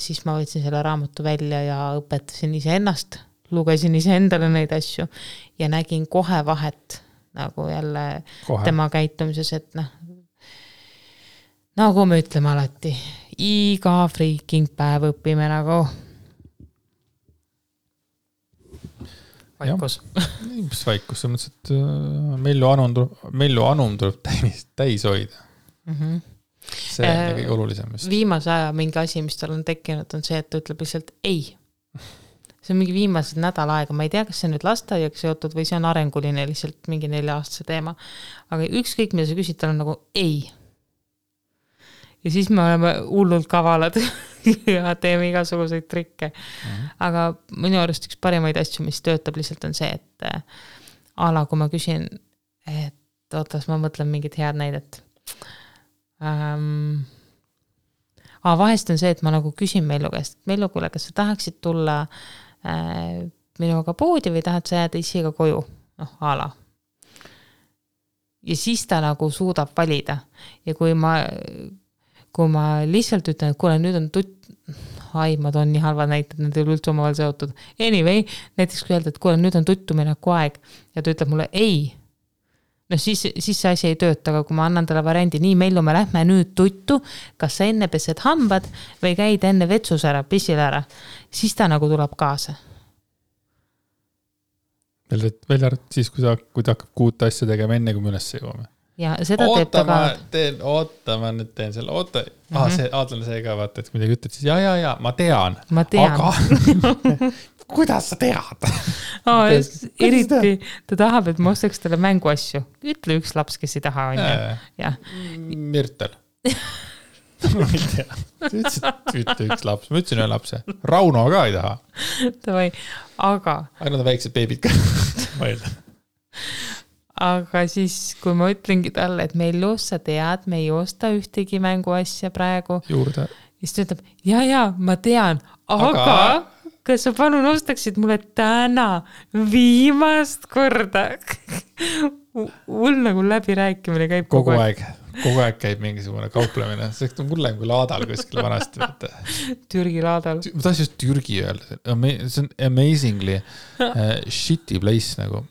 siis ma võtsin selle raamatu välja ja õpetasin ise ennast, lugesin ise endale neid asju ja nägin kohe vahet nagu jälle tema käitumises, et nagu me ütleme alati, iga freaking päev õpime nagu vaikus. Mis vaikus, see mõttes, et Mellu anum tuleb täis hoida. See on kõige olulisem. Viimase aja mingi asi, mis tal on tekkinud, on see, et ta ütleb lihtsalt ei. See on mingi viimased nädal aega. Ma ei tea, kas see nüüd lasteaiaga seotud või see on arenguline lihtsalt mingi 4-aastase teema. Aga ükskõik, mida sa küsid, tal on nagu ei. Ja siis me oleme hullult kavalad ja teeme igasuguseid trikke. Aga minu arust üks parimaid asju, mis töötab lihtsalt on see, et ala, kui ma küsin, et ootas, ma mõtlen mingit head näidet. Vahest on see, et ma nagu küsin Mellu käest, Mellu, kuule, kas sa tahaksid tulla minuga poodi või tahad sa jääda isiga koju? Ala. Ja siis ta nagu suudab valida. Ja kui ma lihtsalt ütlen, et kuule, nüüd on ma toon nii halvad näited, need ei ole üldse omavahel seotud. Anyway, näiteks kui öelda, et kuule, nüüd on tuttumineku aeg ja ta ütleb mulle ei. no siis see asi ei tööta, aga kui ma annan talle variandi, nii Mellu, me lähme nüüd tuttu, kas sa enne pesed hambad või käid enne vetsus ära, pissil ära, siis ta nagu tuleb kaasa. Välja siis, kui ta hakkab 6 asja tegema enne, kui me üles jõuame. Ja seda teeb ta ka. Ma nüüd teen selle, see Aadlane see ka vaata, et kui midagi ütled, siis ja, ma tean. Aga kuidas sa tead? Eriti ta tahab, et ma ostaks talle mänguasju. Ütle üks laps, kes ei taha, on ju. Mürtel. Ma ei tea. Ütle üks laps. Ma ütlesin ühe lapse. Rauno ka ei taha. Tavai, aga... Ainult on väiksed beebid ka. Ma ei tea. Aga siis, kui ma ütlengi talle, et Mellu, sa tead, me ei osta ühtegi mänguasja praegu. Juurde. Siis ta ütleb, ja, ma tean, aga kas sa palun ostaksid mulle täna viimast korda? Mul nagu läbirääkimine käib kogu aeg. Kogu aeg käib mingisugune kauplemine. See on mulle kui laadal kuskil vanasti. Türgi laadal. Ma tahan just Türgi öelda. See on amazingly shitty place nagu.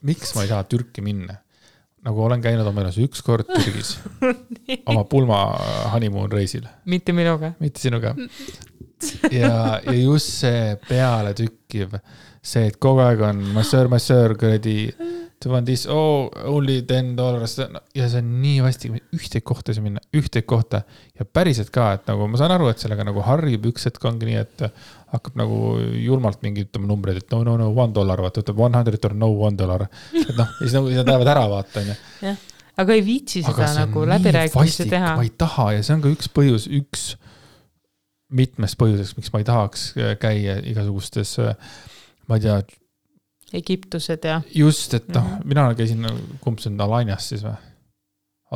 Miks ma ei taha Türki minna? Nagu olen käinud oma elus 1 kord Türgis. Oma pulma honeymoon reisil. Mitte minuga. Mitte sinuga. Ja just see peale tükkiv, see, et kogu aeg on massöör, kuradi, to want this, only $10. Ja see on nii vasti, ühteid kohta see minna, ühteid kohta. Ja päriselt ka, et nagu ma saan aru, et sellega nagu harjub üks hetk ongi nii, et hakkab nagu julmalt mingi ütlema numbreid, et no, $1, vaata, ütleb $100 or no $1. Et noh, siis nagu seda lähevad ära vaata. Jah, aga ei viitsi seda nagu läbirääkimisi teha. Ma ei taha ja see on ka üks põhjus, mitmest põhjuseks, miks ma ei tahaks käia igasugustes, ma ei tea, Egiptused ja... Just, et mina käisin, kumb see on Alanias siis või?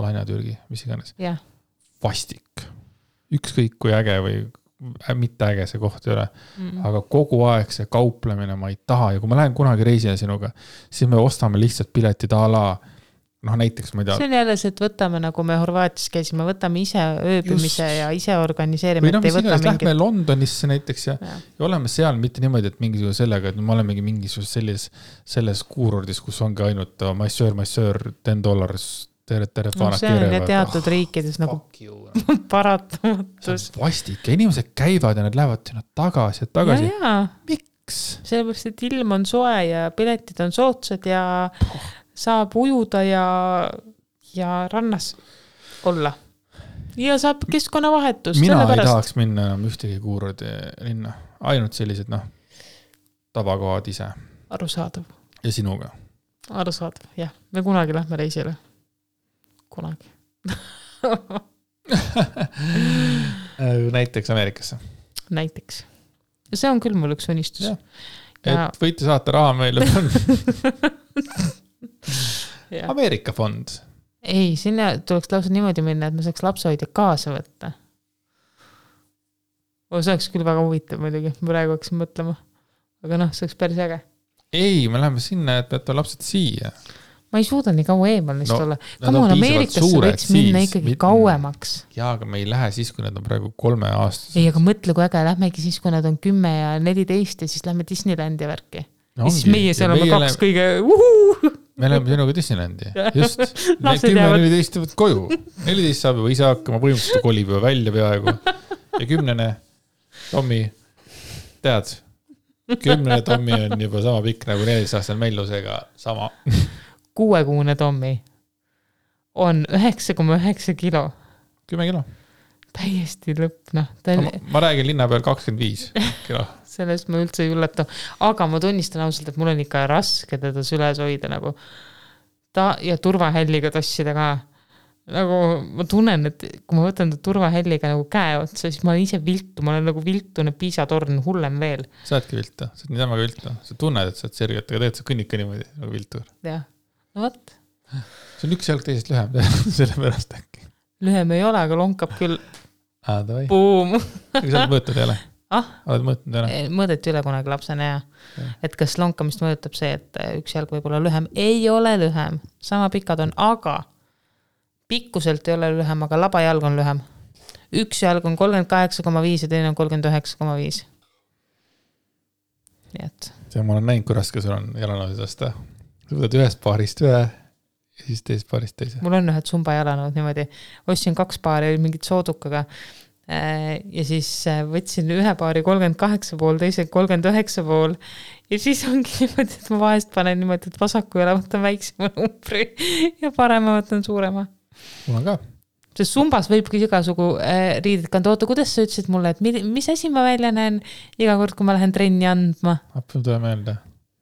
Alania Türgi, mis iganes. Vastik. Ükskõik kui äge või mitte äge see koht ei ole. Aga kogu aeg see kauplemine ma ei taha ja kui ma lähen kunagi reisile sinuga, siis me ostame lihtsalt piletid a la näiteks ma ei tea. See on jälle see, et võtame, nagu me Horvaatias käisime, võtame ise ööbimise ja ise organiseerime. Või lähme Londonisse näiteks ja oleme seal mitte niimoodi, et mingisugune sellega, et me olemegi mingisugune selles kuurordis, kus ongi ainult massöör, $10 tere faanad see on teatud riikides nagu paratamatus. Vastik ja inimesed käivad ja nad lähevad sinna tagasi. Miks? Sellepärast, et ilm on soe ja piletid on soodsad ja saab ujuda ja rannas olla. Ja saab keskkonnavahetus. Mina ei tahaks minna enam ühtegi kuurordi linna. Ainult sellised, tavakohad ise. Arusaadav. Ja sinuga. Arusaadav, jah. Me kunagi lähme reisile. Kunagi. Näiteks Ameerikasse. Näiteks. Ja see on küll mul üks unistus. Et võite saata raha meile. Ameerika fond. Ei, sinna tuleks lausa niimoodi minna, et ma saaks lapsehoidja kaasa võtta. See oleks küll väga huvitav muidugi, praegu hakkasin mõtlema. Aga see oleks päris äge. Ei, me läheme sinna, et peate lapsed siia. Ma ei suuda nii kaua eemal neist olla. Kamu on Ameerikasse võiks minna ikkagi kauemaks. Jaa, aga me ei lähe siis, kui nad on praegu 3 aastas. Ei, aga mõtle, kui äge, lähmegi siis, kui nad on 10 ja 14 ja siis lähme Disneylandi värki. Ja siis meie seal oleme 2 kõige Me oleme sinuga Disneylandi. Just. 10-14 võt koju. 14 saab juba ise hakkama, põhimõtteliselt kolib juba välja peaaegu. Ja 10. Tommi, tead, 10. Tommi on juba sama pikk nagu 14-aastane Mellusega sama. 6-kuune Tommi on 9,9 kilo. 10 kilo. Täiesti lõpp, Ma räägin linna peal 25 kilo. Sellest ma üldse ei üllata. Aga ma tunnistan ausalt, et mul on ikka raske teda süles hoida nagu ja turvahälliga tossida ka. Nagu ma tunnen, et kui ma võtan turvahälliga nagu käe otsa, siis ma olen ise viltu. Ma olen nagu viltune piisatorn hullem veel. Sa oledki viltu. Sa oled nii temaga viltu. Sa tunned, et sa oled sergelt, aga teed sa kõnnika niimoodi nagu viltur. Jah. No võt. See on üks jalg teisest lühem. Selle pärast äkki. Lühem ei ole, aga lonkab küll. Boom. Aga sa oled mõõtnud jälle? Oled mõõtnud jälle? Mõõdeti üle kunagi lapsena ja. Et kas lonkamist mõõdutab see, et üks jalg võib olla lühem. Ei ole lühem. Sama pikad on, aga pikkuselt ei ole lühem, aga labajalg on lühem. Üks jalg on 38,5 ja teine on 39,5. Nii et. See ma olen näinud, kui raske sul on jalanoosest. Sa võtad ühest paarist ühe ja siis teisest paarist teise. Mul on ühed Zumba jalanõud niimoodi. Ostsin 2 paari mingit soodukaga ja siis võtsin ühe paari 38,5, teise 39,5 ja siis ongi niimoodi, et ma vahest panen niimoodi, et vasaku jala võtan väiksema numbri ja parema võtan suurema. Mul on ka. Sest Zumbas võibki igasugu riided kanda. Oota, kuidas sa ütlesid mulle, et mis asi ma välja näen iga kord, kui ma lähen trenni andma? Appi tule meelde.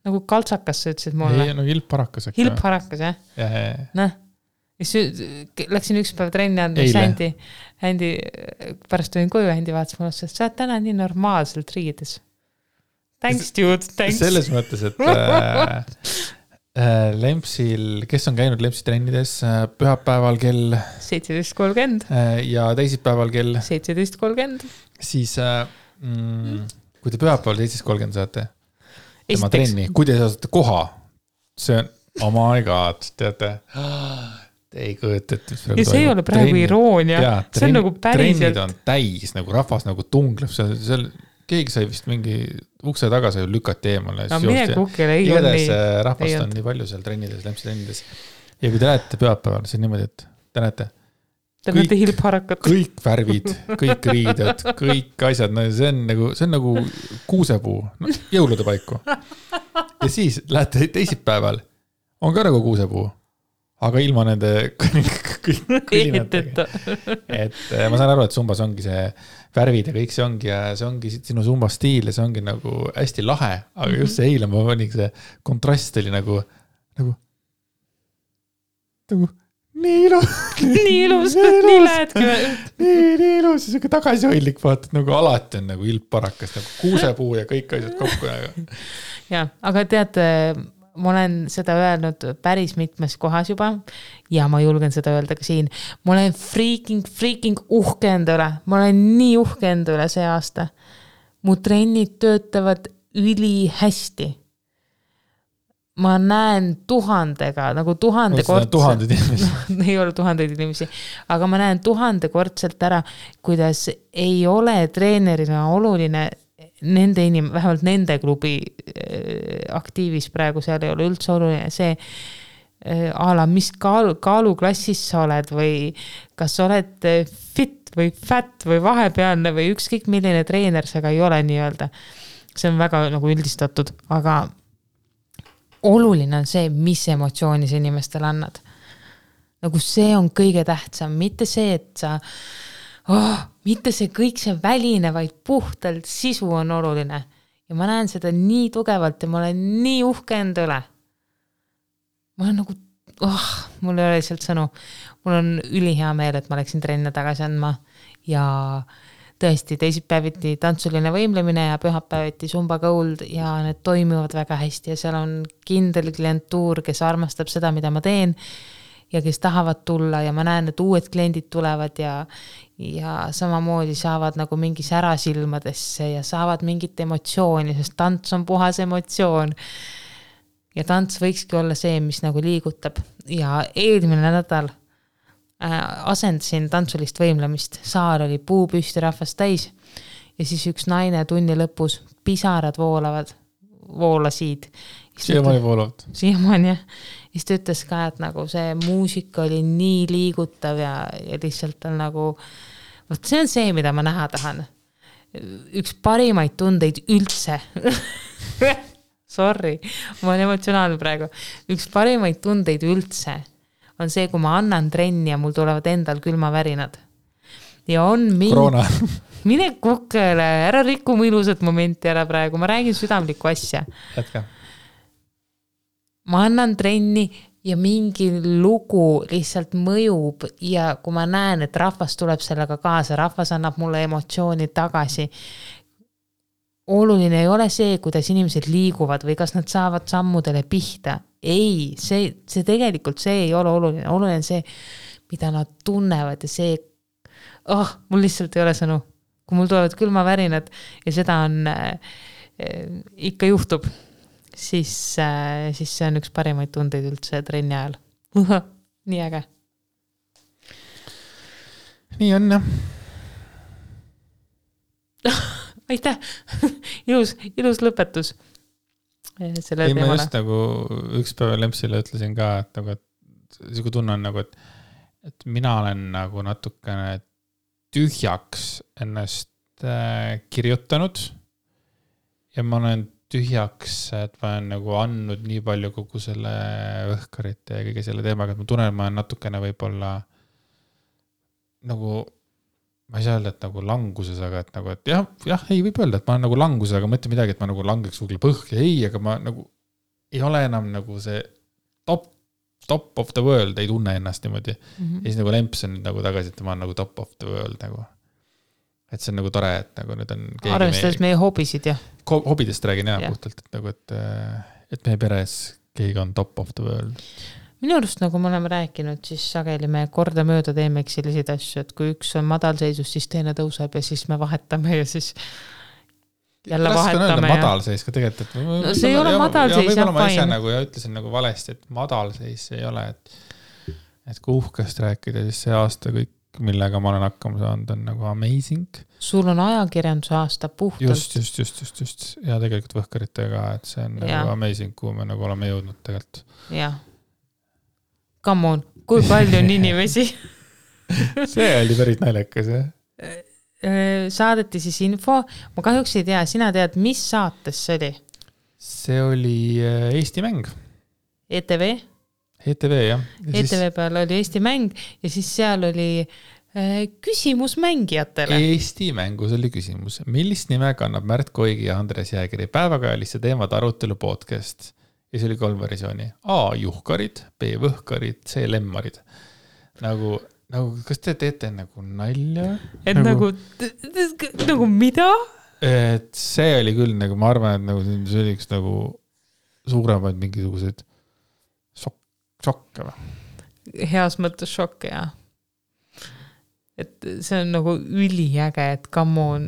Nagu kaltsakas sa ütlesid mulle. Ei, no hilpparakas. Hilpparakas, jah? Ja. Läksin üks päev trenni andma, Händi pärast olin koju, Händi vaatas mulle, sest sa oled täna nii normaalselt riides. Thanks, dude, thanks. Selles mõttes, et Lempsil, kes on käinud Lempsi trennides pühapäeval kell 17.30 ja teisipäeval kell 17.30 siis kui te pühapäeval 17.30 saate tema trenni, kui te saate koha, see on, oh my god, teate, te ei kõõta, et ja see ei ole praegu iroonia, see on nagu päriselt. Trennid on täis, nagu rahvas nagu tungleb, seal keegi sai vist mingi ukse taga sai lükati eemale. No mine kukile, ei ole nii. Rahvast on nii palju seal trennides, Lempsi trennides. Ja kui te lähete pühapäeval, see on niimoodi, et te näete hilpharakat. Kõik värvid, kõik riided, kõik asjad, no see on nagu kuusepuu, jõulude paiku. Ja siis lähete teisipäeval, on ka nagu kuusepuu, aga ilma nende kõlinatega. Et ma saan aru, et Zumbas ongi see värvid ja kõik see ongi sinu Zumba stiil ja see ongi nagu hästi lahe, aga just see eile ma panin see kontrast oli nagu nii ilus, nii lähedki. Nii ilus ja siuke tagasihoidlik vaatad, nagu alati on nagu ilpparakas, nagu kuusepuu ja kõik asjad kokku. Ja, aga teate, ma olen seda öelnud päris mitmes kohas juba ja ma julgen seda öelda ka siin. Ma olen freaking uhke enda üle. Ma olen nii uhke enda üle see aasta. Mu trennid töötavad üli hästi. Ma näen 1000-ga, nagu 1000-kordselt. Ei ole 1000 inimesi, aga ma näen 1000-kordselt ära, kuidas ei ole treenerina oluline nende vähemalt nende klubi aktiivis praegu, seal ei ole üldse oluline see ala, mis kaaluklassis sa oled või kas sa oled fit või fat või vahepealne või ükskõik milline treener sa ka ei ole nii-öelda. See on väga nagu üldistatud, aga oluline on see, mis emotsiooni sa inimestele annad. Nagu see on kõige tähtsam, mitte see, et sa mitte see kõik see väline, vaid puhtalt sisu on oluline. Ja ma näen seda nii tugevalt ja ma olen nii uhke enda üle. Ma olen nagu, mul ei ole lihtsalt sõnu. Mul on ülihea meel, et ma läksin trenne tagasi andma ja tõesti teisipäeviti tantsuline võimlemine ja pühapäeviti Zumba Gold ja need toimivad väga hästi ja seal on kindel klientuur, kes armastab seda, mida ma teen ja kes tahavad tulla ja ma näen, et uued kliendid tulevad ja samamoodi saavad nagu mingi särasilmadesse ja saavad mingit emotsiooni, sest tants on puhas emotsioon. Ja tants võikski olla see, mis nagu liigutab. Ja eelmine nädal asendasin tantsulist võimlemist. Saar oli puupüsti rahvast täis ja siis üks naine tunni lõpus pisarad voolasid. Siiamaani voolavad. Siiamaani, jah. Ja siis ta ütles ka, et nagu see muusika oli nii liigutav ja lihtsalt on nagu, see on see, mida ma näha tahan. Üks parimaid tundeid üldse. Sorry, ma olen emotsionaalne praegu. Üks parimaid tundeid üldse on see, kui ma annan trenni ja mul tulevad endal külmavärinad. Ja on Korona. Mine kukele, ära rikku mu ilusat momenti ära praegu, ma räägin südamlikku asja. Jätka. Ma annan trenni ja mingi lugu lihtsalt mõjub ja kui ma näen, et rahvas tuleb sellega kaasa, rahvas annab mulle emotsiooni tagasi. Oluline ei ole see, kuidas inimesed liiguvad või kas nad saavad sammudele pihta. Ei, see tegelikult see ei ole oluline. Oluline see, mida nad tunnevad ja see, mul lihtsalt ei ole sõnu. Kui mul tulevad külmavärinad ja seda on ikka juhtub, siis see on üks parimaid tundeid üldse trenni ajal. Nii äge. Nii on, jah. Aitäh! ilus lõpetus. Ei, ma just nagu üks päev Lempsile ütlesin ka, et siuke tunne on nagu, et mina olen nagu natukene tühjaks ennast kirjutanud ja ma olen tühjaks, et ma olen nagu andnud nii palju kogu selle õhkarite ja kõige selle teemaga, et ma tunnen, et ma olen natukene võib-olla nagu, ma ei saa öelda, et nagu languses, aga et nagu, et jah, ei võib öelda, et ma olen nagu languses, aga ma ütlen midagi, et ma nagu langeks kuhugi põhja, ei, aga ma nagu ei ole enam nagu see top of the world, ei tunne ennast niimoodi. Ja siis nagu Lemps on nagu tagasi, et ma olen nagu top of the world nagu. Et see on nagu tore, et nagu nüüd on arvestades meie hobisid, jah. Hobidest räägin jah puhtalt, et nagu, et meie peres keegi on top of the world. Minu arust, nagu me oleme rääkinud, siis sageli me korda mööda teemeks selliseid asju, et kui üks on madalseisus, siis teine tõuseb ja siis me vahetame ja siis jälle vahetame. Madalseis ka tegelikult, et no see ei ole madalseis, jah, ma ise nagu ja ütlesin nagu valesti, et madalseis ei ole, et kui uhkest rääkida, siis see aasta kõik, millega ma olen hakkama saanud, on nagu amazing. Sul on ajakirjanduse aasta puhtalt. Just. Ja tegelikult võhkaritega, et see on nagu amazing, kuhu me nagu oleme jõudnud tegelikult. Jah. Come on, kui palju on inimesi? See oli päris naljakas, jah? Saadeti siis info. Ma kahjuks ei tea, sina tead, mis saates see oli? See oli Eesti mäng. ETV, jah. ETV peal oli Eesti mäng ja siis seal oli küsimus mängijatele. Eesti mängus oli küsimus. Millist nime kannab Märt Koigi ja Andres Jäägeri päevakajalisse teemad arutelu podcast? Ja see oli 3 versiooni. A. Juhkarid, B. Võhkarid, C. Lemmarid. Nagu, kas te teete nagu nalja? Et nagu mida? Et see oli küll, nagu ma arvan, et nagu see oli üks nagu suuremaid mingisugused šokke või? Heas mõttes šokke, jah. Et see on nagu üliäge, et come on,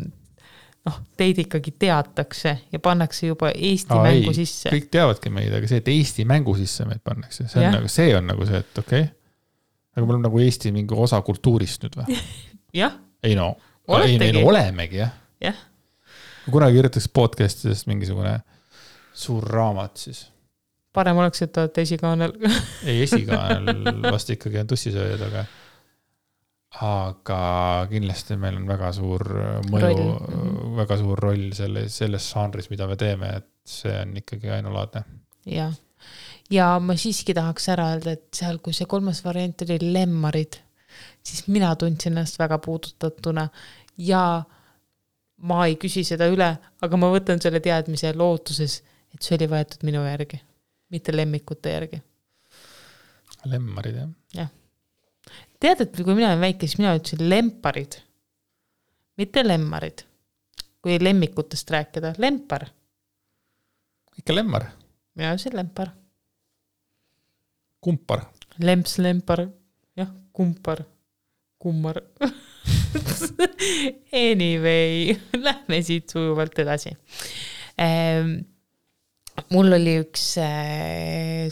teid ikkagi teatakse ja pannakse juba Eesti mängu sisse. Kõik teavadki meid, aga see, et Eesti mängu sisse meid pannakse, see on nagu see, et okei. Aga me oleme nagu Eesti mingi osa kultuurist nüüd või? Jah. Ei olemegi, jah. Jah. Kui kunagi kirjutaks podcastidest mingisugune suur raamat, siis parem oleks, et olete esikaanel. Ei, esikaanel vast ikkagi on tussisööjad, aga kindlasti meil on väga suur mõju, väga suur roll selles žanris, mida me teeme, et see on ikkagi ainulaadne. Ja ma siiski tahaks ära öelda, et seal, kui see 3. variant oli Lemmarid, siis mina tundsin ennast väga puudutatuna ja ma ei küsi seda üle, aga ma võtan selle teadmise lootuses, et see oli võetud minu järgi. Mitte lemmikute järgi. Lemmarid, jah. Jah. Tead, et kui mina olen väike, siis mina ütlesin lemparid. Mitte lemmarid. Kui lemmikutest rääkida. Lempar. Ikka lemmar? Mina ütlesin lempar. Kumpar. Lemps, lempar. Jah, kumpar. Kummar. Anyway, lähme siit sujuvalt edasi. Mul oli üks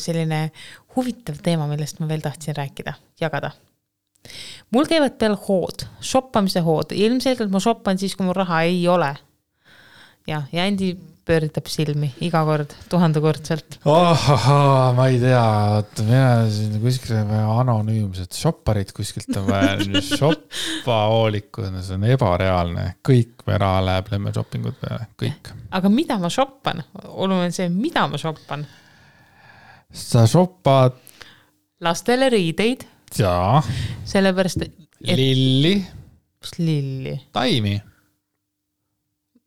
selline huvitav teema, millest ma veel tahtsin rääkida, jagada. Mul käivad peal hood, shoppamise hood. Ilmselgelt ma shoppan siis, kui mul raha ei ole. Ja Andi pööritab silmi iga kord, 1000-kordselt. Ma ei tea, mina siin kuskil anonüümsed shopparid kuskilt on vaja, shoppahoolikud, see on ebareaalne. Kõik me raha läheb lemme shoppingud peale, kõik. Aga mida ma shoppan? Oluline see, mida ma shoppan? Sa shoppad lastele riideid. Jaa. Sellepärast, Lilli. Lilli. Taimi.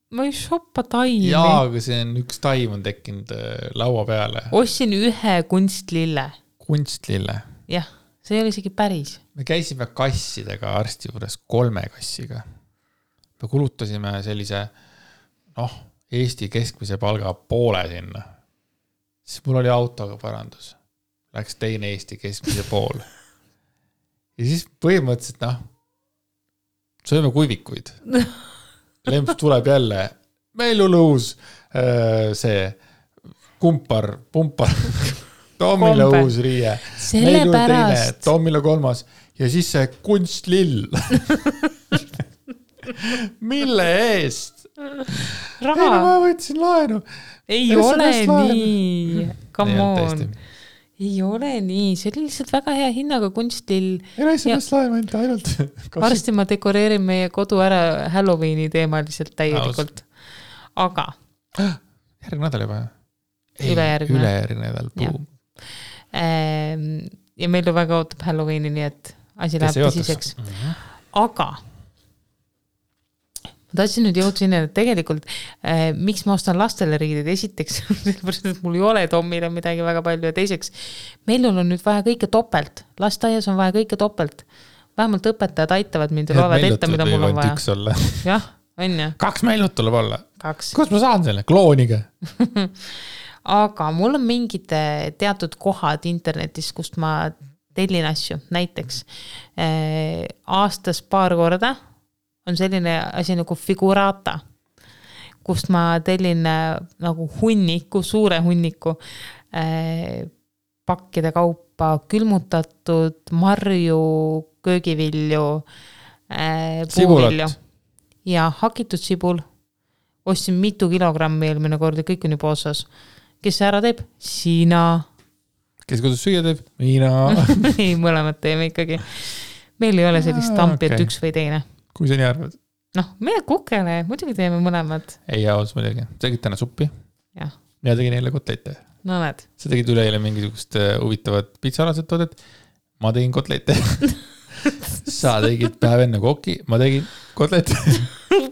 Ma ei shoppa taimi. Jaa, aga see on üks taim on tekkinud laua peale. Ostsin ühe kunstlille. Kunstlille? Jah, see ei ole isegi päris. Me käisime kassidega arsti juures 3 kassiga. Me kulutasime sellise, Eesti keskmise palga poole sinna. Siis mul oli autoga parandus. Läks teine Eesti keskmise pool. Ja siis põhimõtteliselt, sööme kuivikuid. Lemps tuleb jälle, meil on uus see pumpar, Tomile uus riie, meil on teine, Tomile 3 ja siis see kunstlill. Mille eest? Raha. Ei, ma võtsin laenu. Ei ole nii. Come on. ei ole nii, see oli lihtsalt väga hea hinnaga kunstil. ei ole sellest laema ainult. Varsti ma dekoreerin meie kodu ära Halloweeni teemaliselt täielikult. Aga. Järgmine nädal juba. Ülejärgmine nädal. Boom. Ja meil ju väga ootab Halloweeni, nii et asi läheb tõsiseks. Aga ma tahtsin nüüd jõuda sinna, et tegelikult miks ma ostan lastele riideid esiteks, sellepärast, et mul ei ole Tommile midagi väga palju ja teiseks, meil on nüüd vaja kõike topelt. Lastaias on vaja kõike topelt. Vähemalt õpetajad aitavad mind ja loevad ette, mida mul on vaja. Jah, on ju. 2 meilut tuleb olla. 2. Kus ma saan selle? Klooniga. Aga mul on mingid teatud kohad internetis, kust ma tellin asju. Näiteks aastas paar korda on selline asi nagu Figurata, kust ma tellin nagu hunniku, suure hunniku pakkide kaupa, külmutatud marju, köögivilju, puuvilju ja hakitud sibul. Ostsin mitu kilogrammi eelmine kord ja kõik on juba osas. Kes see ära teeb? Sina. Kes kodus süüa teeb? Mina. Ei, mõlemad teeme ikkagi. Meil ei ole sellist tampi, et üks või teine. Kui sa nii arvad? Noh, meie kukele, muidugi teeme mõlemad. Ei, jaos muidugi. Sa tegid täna suppi? Jah. Mina tegin eile kotleite. No näed. Sa tegid üleeile mingisugust huvitavat pitsalaset toodet. Ma tegin kotleite. Sa tegid päev enne koki. Ma tegin kotleite.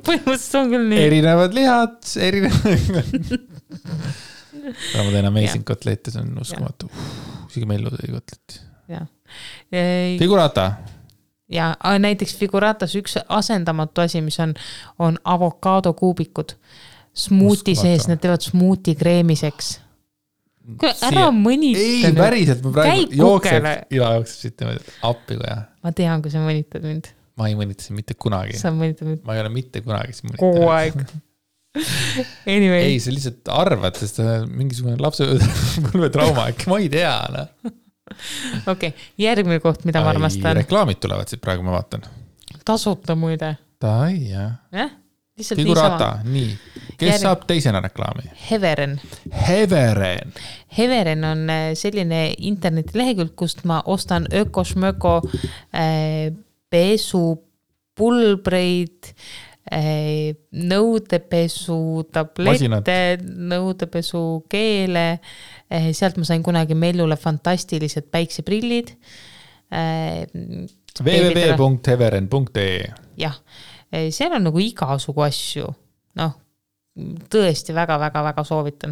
Põhimõtteliselt on küll nii. Erinevad lihad, ma teen amazing kotleite, see on uskumatu. Isegi mellu tegi kotletti. Figurata. Ja näiteks Figuratas üks asendamatu asi, mis on avokaado kuubikud. Smuuti sees, need teevad smuuti kreemiseks. Ära mõnita. Ei, päriselt, ma praegu jookseb siit appi koja. Ma tean, kui sa mõnitad mind. Ma ei mõnita siin mitte kunagi. Sa mõnitad mind. Ma ei ole mitte kunagi siin mõnitanud. Kogu aeg. Anyway. Ei, sa lihtsalt arvad, sest mingisugune lapsepõlvetrauma, äkki ma ei tea. Okei, järgmine koht, mida ma armastan. Reklaamid tulevad siit praegu, ma vaatan. Tasuta muide. Tai, jah. Figurata, nii. Kes saab teisena reklaami? Heveren. Heveren on selline internetilehekülg, kust ma ostan ökošmöko pesupulbreid, nõudepesu tablette, nõudepesu keele. Sealt ma sain kunagi Mellule fantastilised päikseprillid. www.heveren.ee Jah, seal on nagu igasugu asju. Noh, tõesti väga soovitan.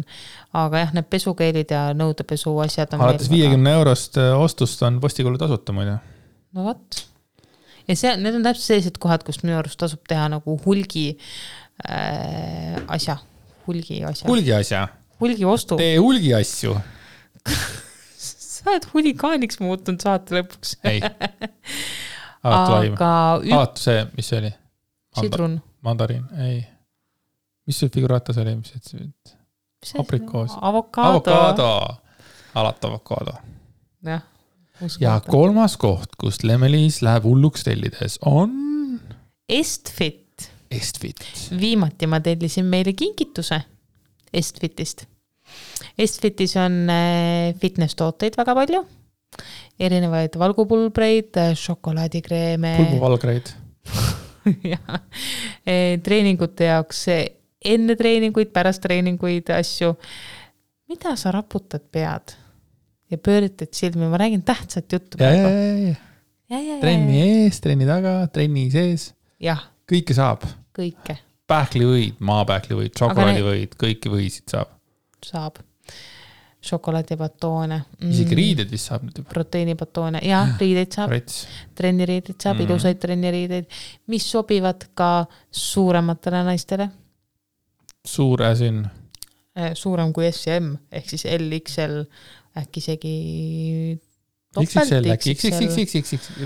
Aga jah, need pesukeelid ja nõudepesu asjad on alates 50 eurost ostust on postikulu tasuta muide. No võt. Ja need on täpselt sellised kohad, kust minu arust tasub teha nagu hulgi asja. Hulgi ostu. Tee hulgi asju. Sa oled hulikaaniks muutunud saate lõpuks. Ei. Alatu see, mis see oli? Sidrun. Mandariin, ei. Mis see Figuratas oli? Aprikoos. Avokaado. Alatu avokaado. Jah. Ja 3. koht, kust Lemmelis läheb hulluks tellides on... Estfit. Estfit. Viimati ma tellisin meile kinkituse Estfitist. Estfitis on fitness-tooteid väga palju. Erinevaid valgupulbreid, šokolaadikreeme. Pulbuvalgreid. Ja, treeningute jaoks enne treeninguid, pärast treeninguid asju. Mida sa raputad pead? Ja pööritad silmi, ma räägin tähtsat juttu. Trenni ees, trenni taga, trenni sees. Jah. Kõike saab. Kõike. Pähklivõid, maapähklivõid, šokolaadivõid, kõiki võisid saab. Saab. Šokolaadibatoone. Isegi riided vist saab. Proteiinibatoone. Ja, riideid saab. Trenniriideid saab, ilusaid trenniriideid, mis sobivad ka suurematele naistele. Suur äsin. Suurem kui S ja M, ehk siis LXL, äkki isegi XXL,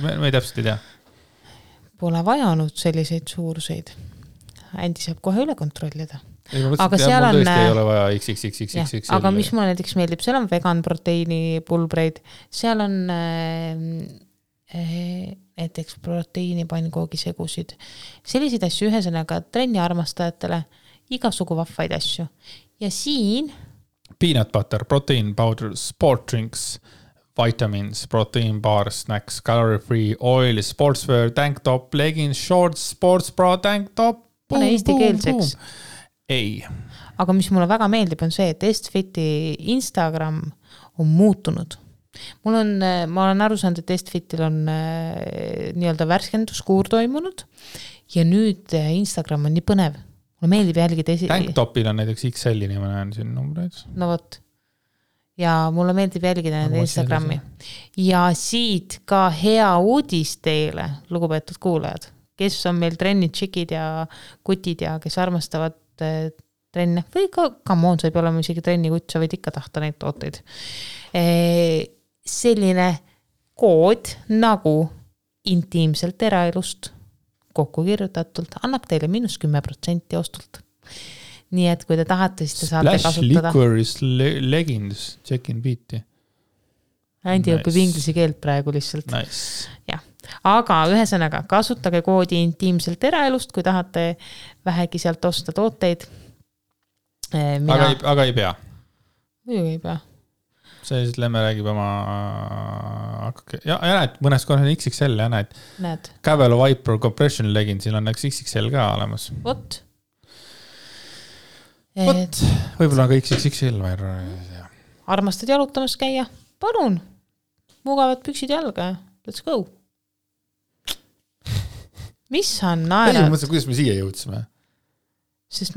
ma ei täpselt ei tea. Pole vajanud selliseid suuruseid. Andi saab kohe üle kontrollida. Aga seal on... Tõesti ei ole vaja XXXXXL. Aga mis mulle näiteks meeldib, seal on vegan proteiini pulbreid, seal on näiteks proteiini pannkoogisegusid. Selliseid asju ühesõnaga trenni armastajatele, igasugu vahvaid asju. Ja siin... Peanut butter, protein powder, sport drinks, vitamins, protein bar, snacks, calorie free, oil, sportswear, tank top, leggings, shorts, sports bra, tank top. Pane eesti keelseks. Ei. Aga mis mulle väga meeldib on see, et Estfiti Instagram on muutunud. Ma olen aru saanud, et Estfitil on nii-öelda värskenduskuur toimunud ja nüüd Instagram on nii põnev. Mulle meeldib jälgida Tank topil on näiteks XL-i ma näen siin numbreid. No vot. Ja mulle meeldib jälgida nende Instagrami. Ja siit ka hea uudis teile, lugupeetud kuulajad, kes on meil trennid, tšikid ja kutid ja kes armastavad trenne või ka come on, sa ei pea olema isegi trenni kutt, sa võid ikka tahta neid tooteid. Selline kood nagu intiimselt eraelust kokku kirjutatult annab teile -10% ostult. Nii et kui te tahate, siis te saate Splash kasutada. Liquor's leggings, check-in beat'i. Andi õpib inglise keelt praegu lihtsalt. Nice. Ja. Aga ühesõnaga, kasutage koodi intiimselt eraelust, kui tahate vähegi sealt osta tooteid. Aga ei pea. Muidugi ei pea. See siis Lemme räägib oma... Ja näed, mõnes korras on XXL ja näed. Cavalo Viper Compression Leggingsil on XXL ka olemas. Vot. Võib-olla on ka XXL. Armastad jalutamas käia? Palun. Mugavad püksid jalga. Let's go. Mis on naerad? Ei, mõtlen, kuidas me siia jõudsime?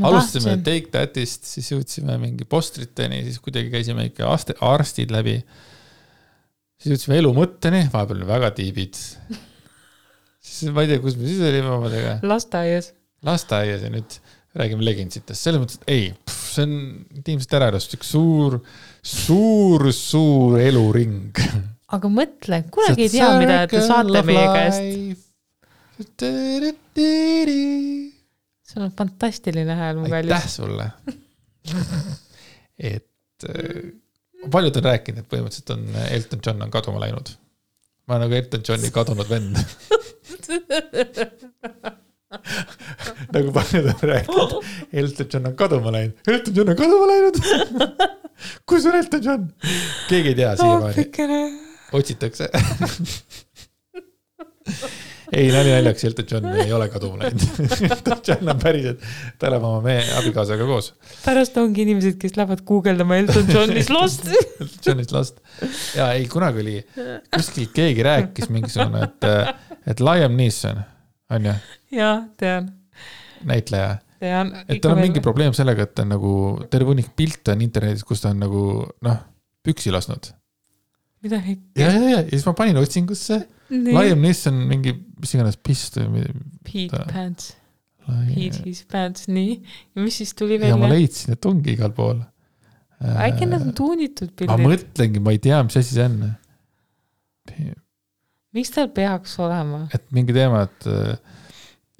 Alustasime Take Thatist, siis jõudsime mingi postriteni, siis kuidagi käisime ikka arstid läbi. Siis jõudsime elu mõtteni, vahepeal on väga tiibid. Siis ma ei tea, kus me siis olime omadega. Lasteaias ja nüüd räägime leginsitest. Selles mõttes, et ei, see on intiimselt äraelust üks suur eluring. Aga mõtle, kunagi ei tea, mida te saate meie käest. See on fantastiline hääl, mu kallis. Aitäh sulle. Et paljud on rääkinud, et põhimõtteliselt on Elton John on kaduma läinud. Ma olen nagu Elton Johni kadunud vend. Nagu paljud on rääkinud, Elton John on kaduma läinud. Elton John on kaduma läinud. Kus on Elton John? Keegi ei tea siiamaani. Otsitakse. Ei, naljaks, Elton John ei ole kaduma läinud. Elton John on päriselt, ta elab oma meie abikaasaga koos. Pärast ongi inimesed, kes lähevad googeldama Elton John's Lost. Elton John's Lost. Ja ei, kunagi oli, kuskil keegi rääkis mingisugune, et Liam Neeson on ju? Jaa, tean. Näitleja. Tean. Et tal on mingi probleem sellega, et ta on nagu terve hunnik pilte on internetis, kus ta on nagu, püksi lasnud. Mida hekki? Ja siis ma panin otsingusse. Liam Neeson mingi, mis iganes pist. Pete Pants. Pete his pants, nii. Ja mis siis tuli välja? Ja ma leidsin, et ongi igal pool. Äkki nad on tuunitud pildid? Ma mõtlengi, ma ei tea, mis asi see on. Miks tal peaks olema? Et mingi teema, et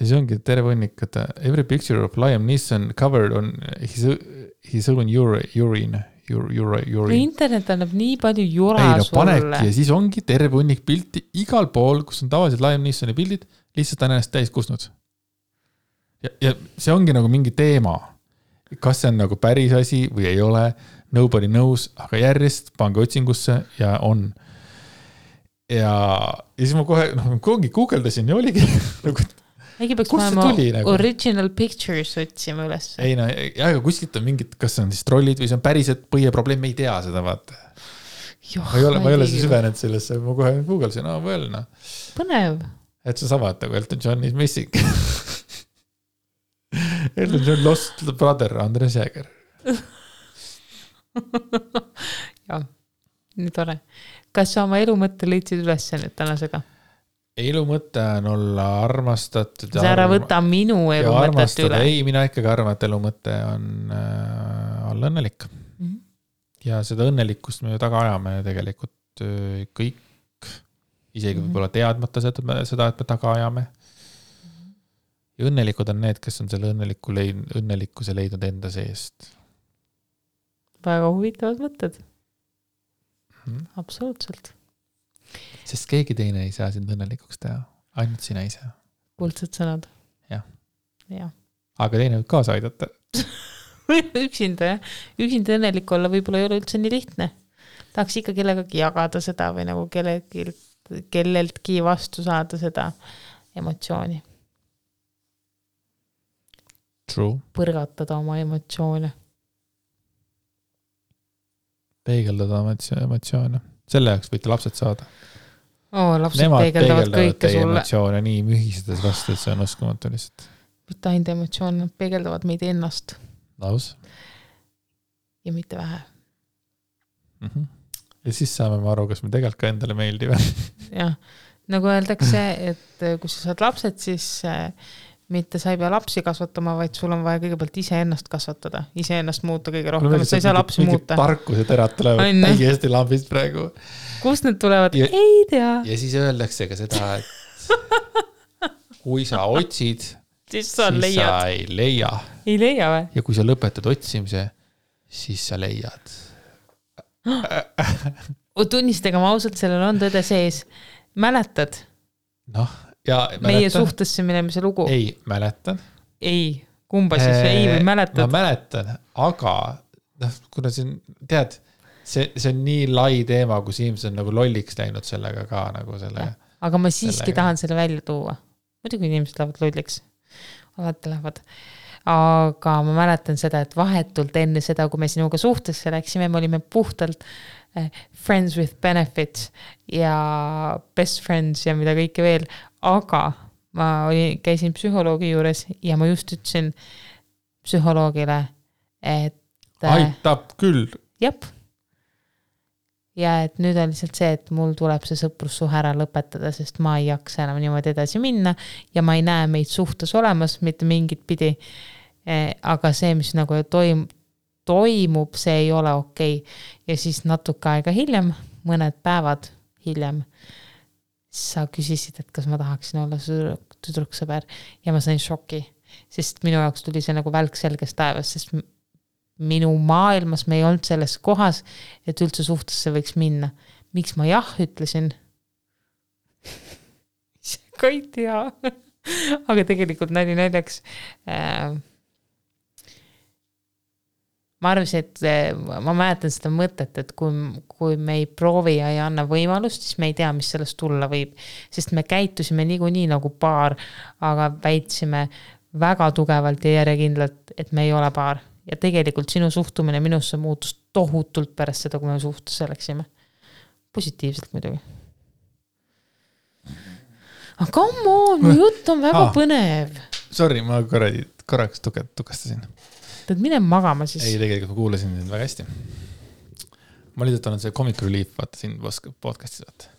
see ongi terve hunnik, et every picture of Liam Neeson covered on his own urine. Internet annab nii palju jura sulle. Panebki ja siis ongi terve hunnik pilti igal pool, kus on tavaliselt Liam Neesoni pildid, lihtsalt on ennast täis kusnud. Ja see ongi nagu mingi teema. Kas see on nagu päris asi või ei ole, nobody knows, aga järjest pange otsingusse ja on. Ja siis ma kohe, guugeldasin ja oligi nagu äkki peaks panema original pictures otsima üles. Ei, aga kuskilt on mingid, kas see on siis trollid või see on päriselt põhiprobleem, me ei tea seda, vaata. Ma ei ole see süvenenud sellesse, ma kohe googlesin, Põnev. Et see sama, et nagu Elton John is missing. Elton John lost the brother, Andres Jäger. Jah, nii tore. Kas sa oma elu mõtte leidsid üles nüüd tänasega? Elu mõte on olla armastatud. Sa ära võta minu elu mõtet üle. Ei, mina ikkagi arvan, et elu mõte on olla õnnelik. Ja seda õnnelikkust me taga ajame tegelikult kõik, isegi võib-olla teadmata seda, et me taga ajame. Ja õnnelikud on need, kes on selle õnnelikkuse leidnud enda seest. Väga huvitavad mõtted. Absoluutselt. Sest keegi teine ei saa sind õnnelikuks teha. Ainult sina ise. Kuldsed sõnad. Jah. Ja. Aga teine võib kaasa aidata. Üksinda, jah. Üksinda õnnelik olla võib-olla ei ole üldse nii lihtne. tahaks ikka kellegagi jagada seda või nagu kelleltki vastu saada seda emotsiooni. True. Põrgatada oma emotsioone. Peegeldada emotsioone. Selle jaoks võite lapsed saada. Lapsed Nemad peegeldavad kõike teie sulle. emotsioone nii mühisedes vastu, et see on uskumatu lihtsalt. Mitte ainult emotsioon, nad peegeldavad meid ennast. Laus. Ja mitte vähe. Ja siis saame aru, kas me tegelikult ka endale meeldiva. Jah, nagu öeldakse, et kui sa saad lapsed, siis mitte sa ei pea lapsi kasvatama, vaid sul on vaja kõigepealt iseennast kasvatada, iseennast muuta kõige rohkem, sa ei saa lapsi muuta. Tarkuse terad tulevad täiesti lambist praegu. Kust need tulevad? Ei tea. Ja siis öeldakse ka seda, et kui sa otsid, siis sa ei leia. Ei leia või? Ja kui sa lõpetad otsimise, siis sa leiad. Tunnistega ma ausalt, sellel on tõde sees. Mäletad? Ja meie suhtesse minemise lugu. Ei, mäletan. Ei, kumba siis ei või mäletad? Ma mäletan, aga kuna siin, tead, see on nii lai teema, kus inimesed on nagu lolliks läinud sellega ka nagu sellega. Aga ma siiski tahan selle välja tuua. Muidugi inimesed lähevad lolliks. Alati lähevad. Aga ma mäletan seda, et vahetult enne seda, kui me sinuga suhtesse läksime, me olime puhtalt friends with benefits ja best friends ja mida kõike veel, aga ma käisin psühholoogi juures ja ma just ütlesin psühholoogile, et aitab küll. Jep. Ja et nüüd on lihtsalt see, et mul tuleb see sõprussuhe ära lõpetada, sest ma ei jaksa enam niimoodi edasi minna ja ma ei näe meid suhtes olemas mitte mingit pidi, aga see, mis nagu toimub, see ei ole okei. Ja siis natuke aega hiljem, mõned päevad hiljem, sa küsisid, et kas ma tahaksin olla tüdruksõber ja ma sain šoki, sest minu jaoks tuli see nagu välk selgest taevas, sest minu maailmas me ei olnud selles kohas, et üldse suhtesse võiks minna. Miks ma jah ütlesin? Ka ei tea. Aga tegelikult näljaks ma arvasin, et ma mäletan seda mõtet, et kui me ei proovi ja ei anna võimalust, siis me ei tea, mis sellest tulla võib. Sest me käitusime nii nagu paar, aga väitsime väga tugevalt ja järjekindlalt, et me ei ole paar. Ja tegelikult sinu suhtumine minusse muutus tohutult pärast seda, kui me suhtesse läksime. Positiivselt muidugi. Aga come on, mu jutt on väga põnev. Sorry, ma korraks tukastasin. Tad mine magama siis. Ei, tegelikult ma kuulasin sind väga hästi. Ma lihtsalt olen see Comic Relief, vaata siin podcastis vaata.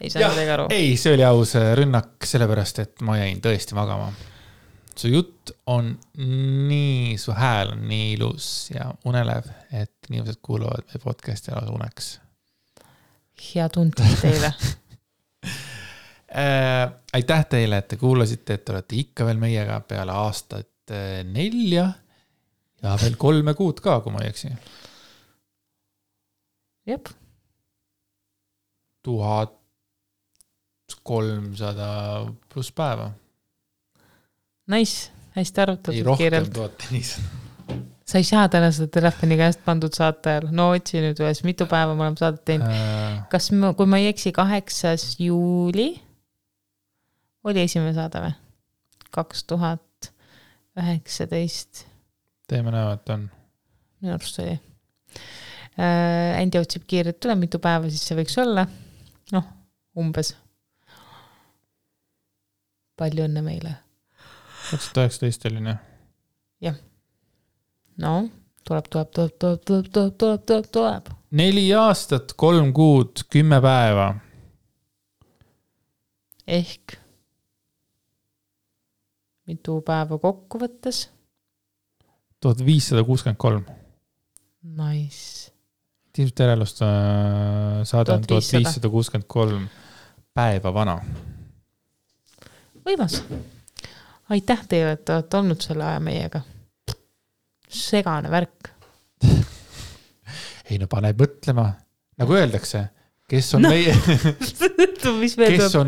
Ei saa midagi aru. Ei, see oli aus rünnak sellepärast, et ma jäin tõesti magama. Su jutt on nii, su hääl on nii ilus ja unelev, et inimesed kuuluvad meie podcasti ära uneks. Hea tundlik teile. Aitäh teile, et te kuulasite, et te olete ikka veel meiega peale aastat 4 ja veel 3 kuud ka, kui ma ei eksi. Jep. 1300 pluss päeva. Nice, hästi arvutatud. Ei rohkem 1500. Sa ei saa täna seda telefoni käest pandud saate ajal. No otsi nüüd ühes, mitu päeva me oleme saadet teinud. Kas kui ma ei eksi 8. juuli oli esimene saade või? 2019. Teeme näo, et on. Minu arust oli. Andi otsib kiirelt tule, mitu päeva siis see võiks olla. Umbes. Palju õnne meile. 2019 oli, jah? Jah. Tuleb. 4 aastat, 3 kuud, 10 päeva. Ehk mitu päeva kokku võttes? 1563. Nice. Tiimsut järelust saade on 1563 päeva vana. Võimas. Aitäh teile, et olete olnud selle aja meiega. Segane värk. Ei, no paneb mõtlema. Nagu öeldakse, kes on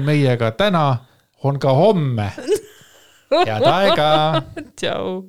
meiega täna, on ka homme. Head aega. Tšau.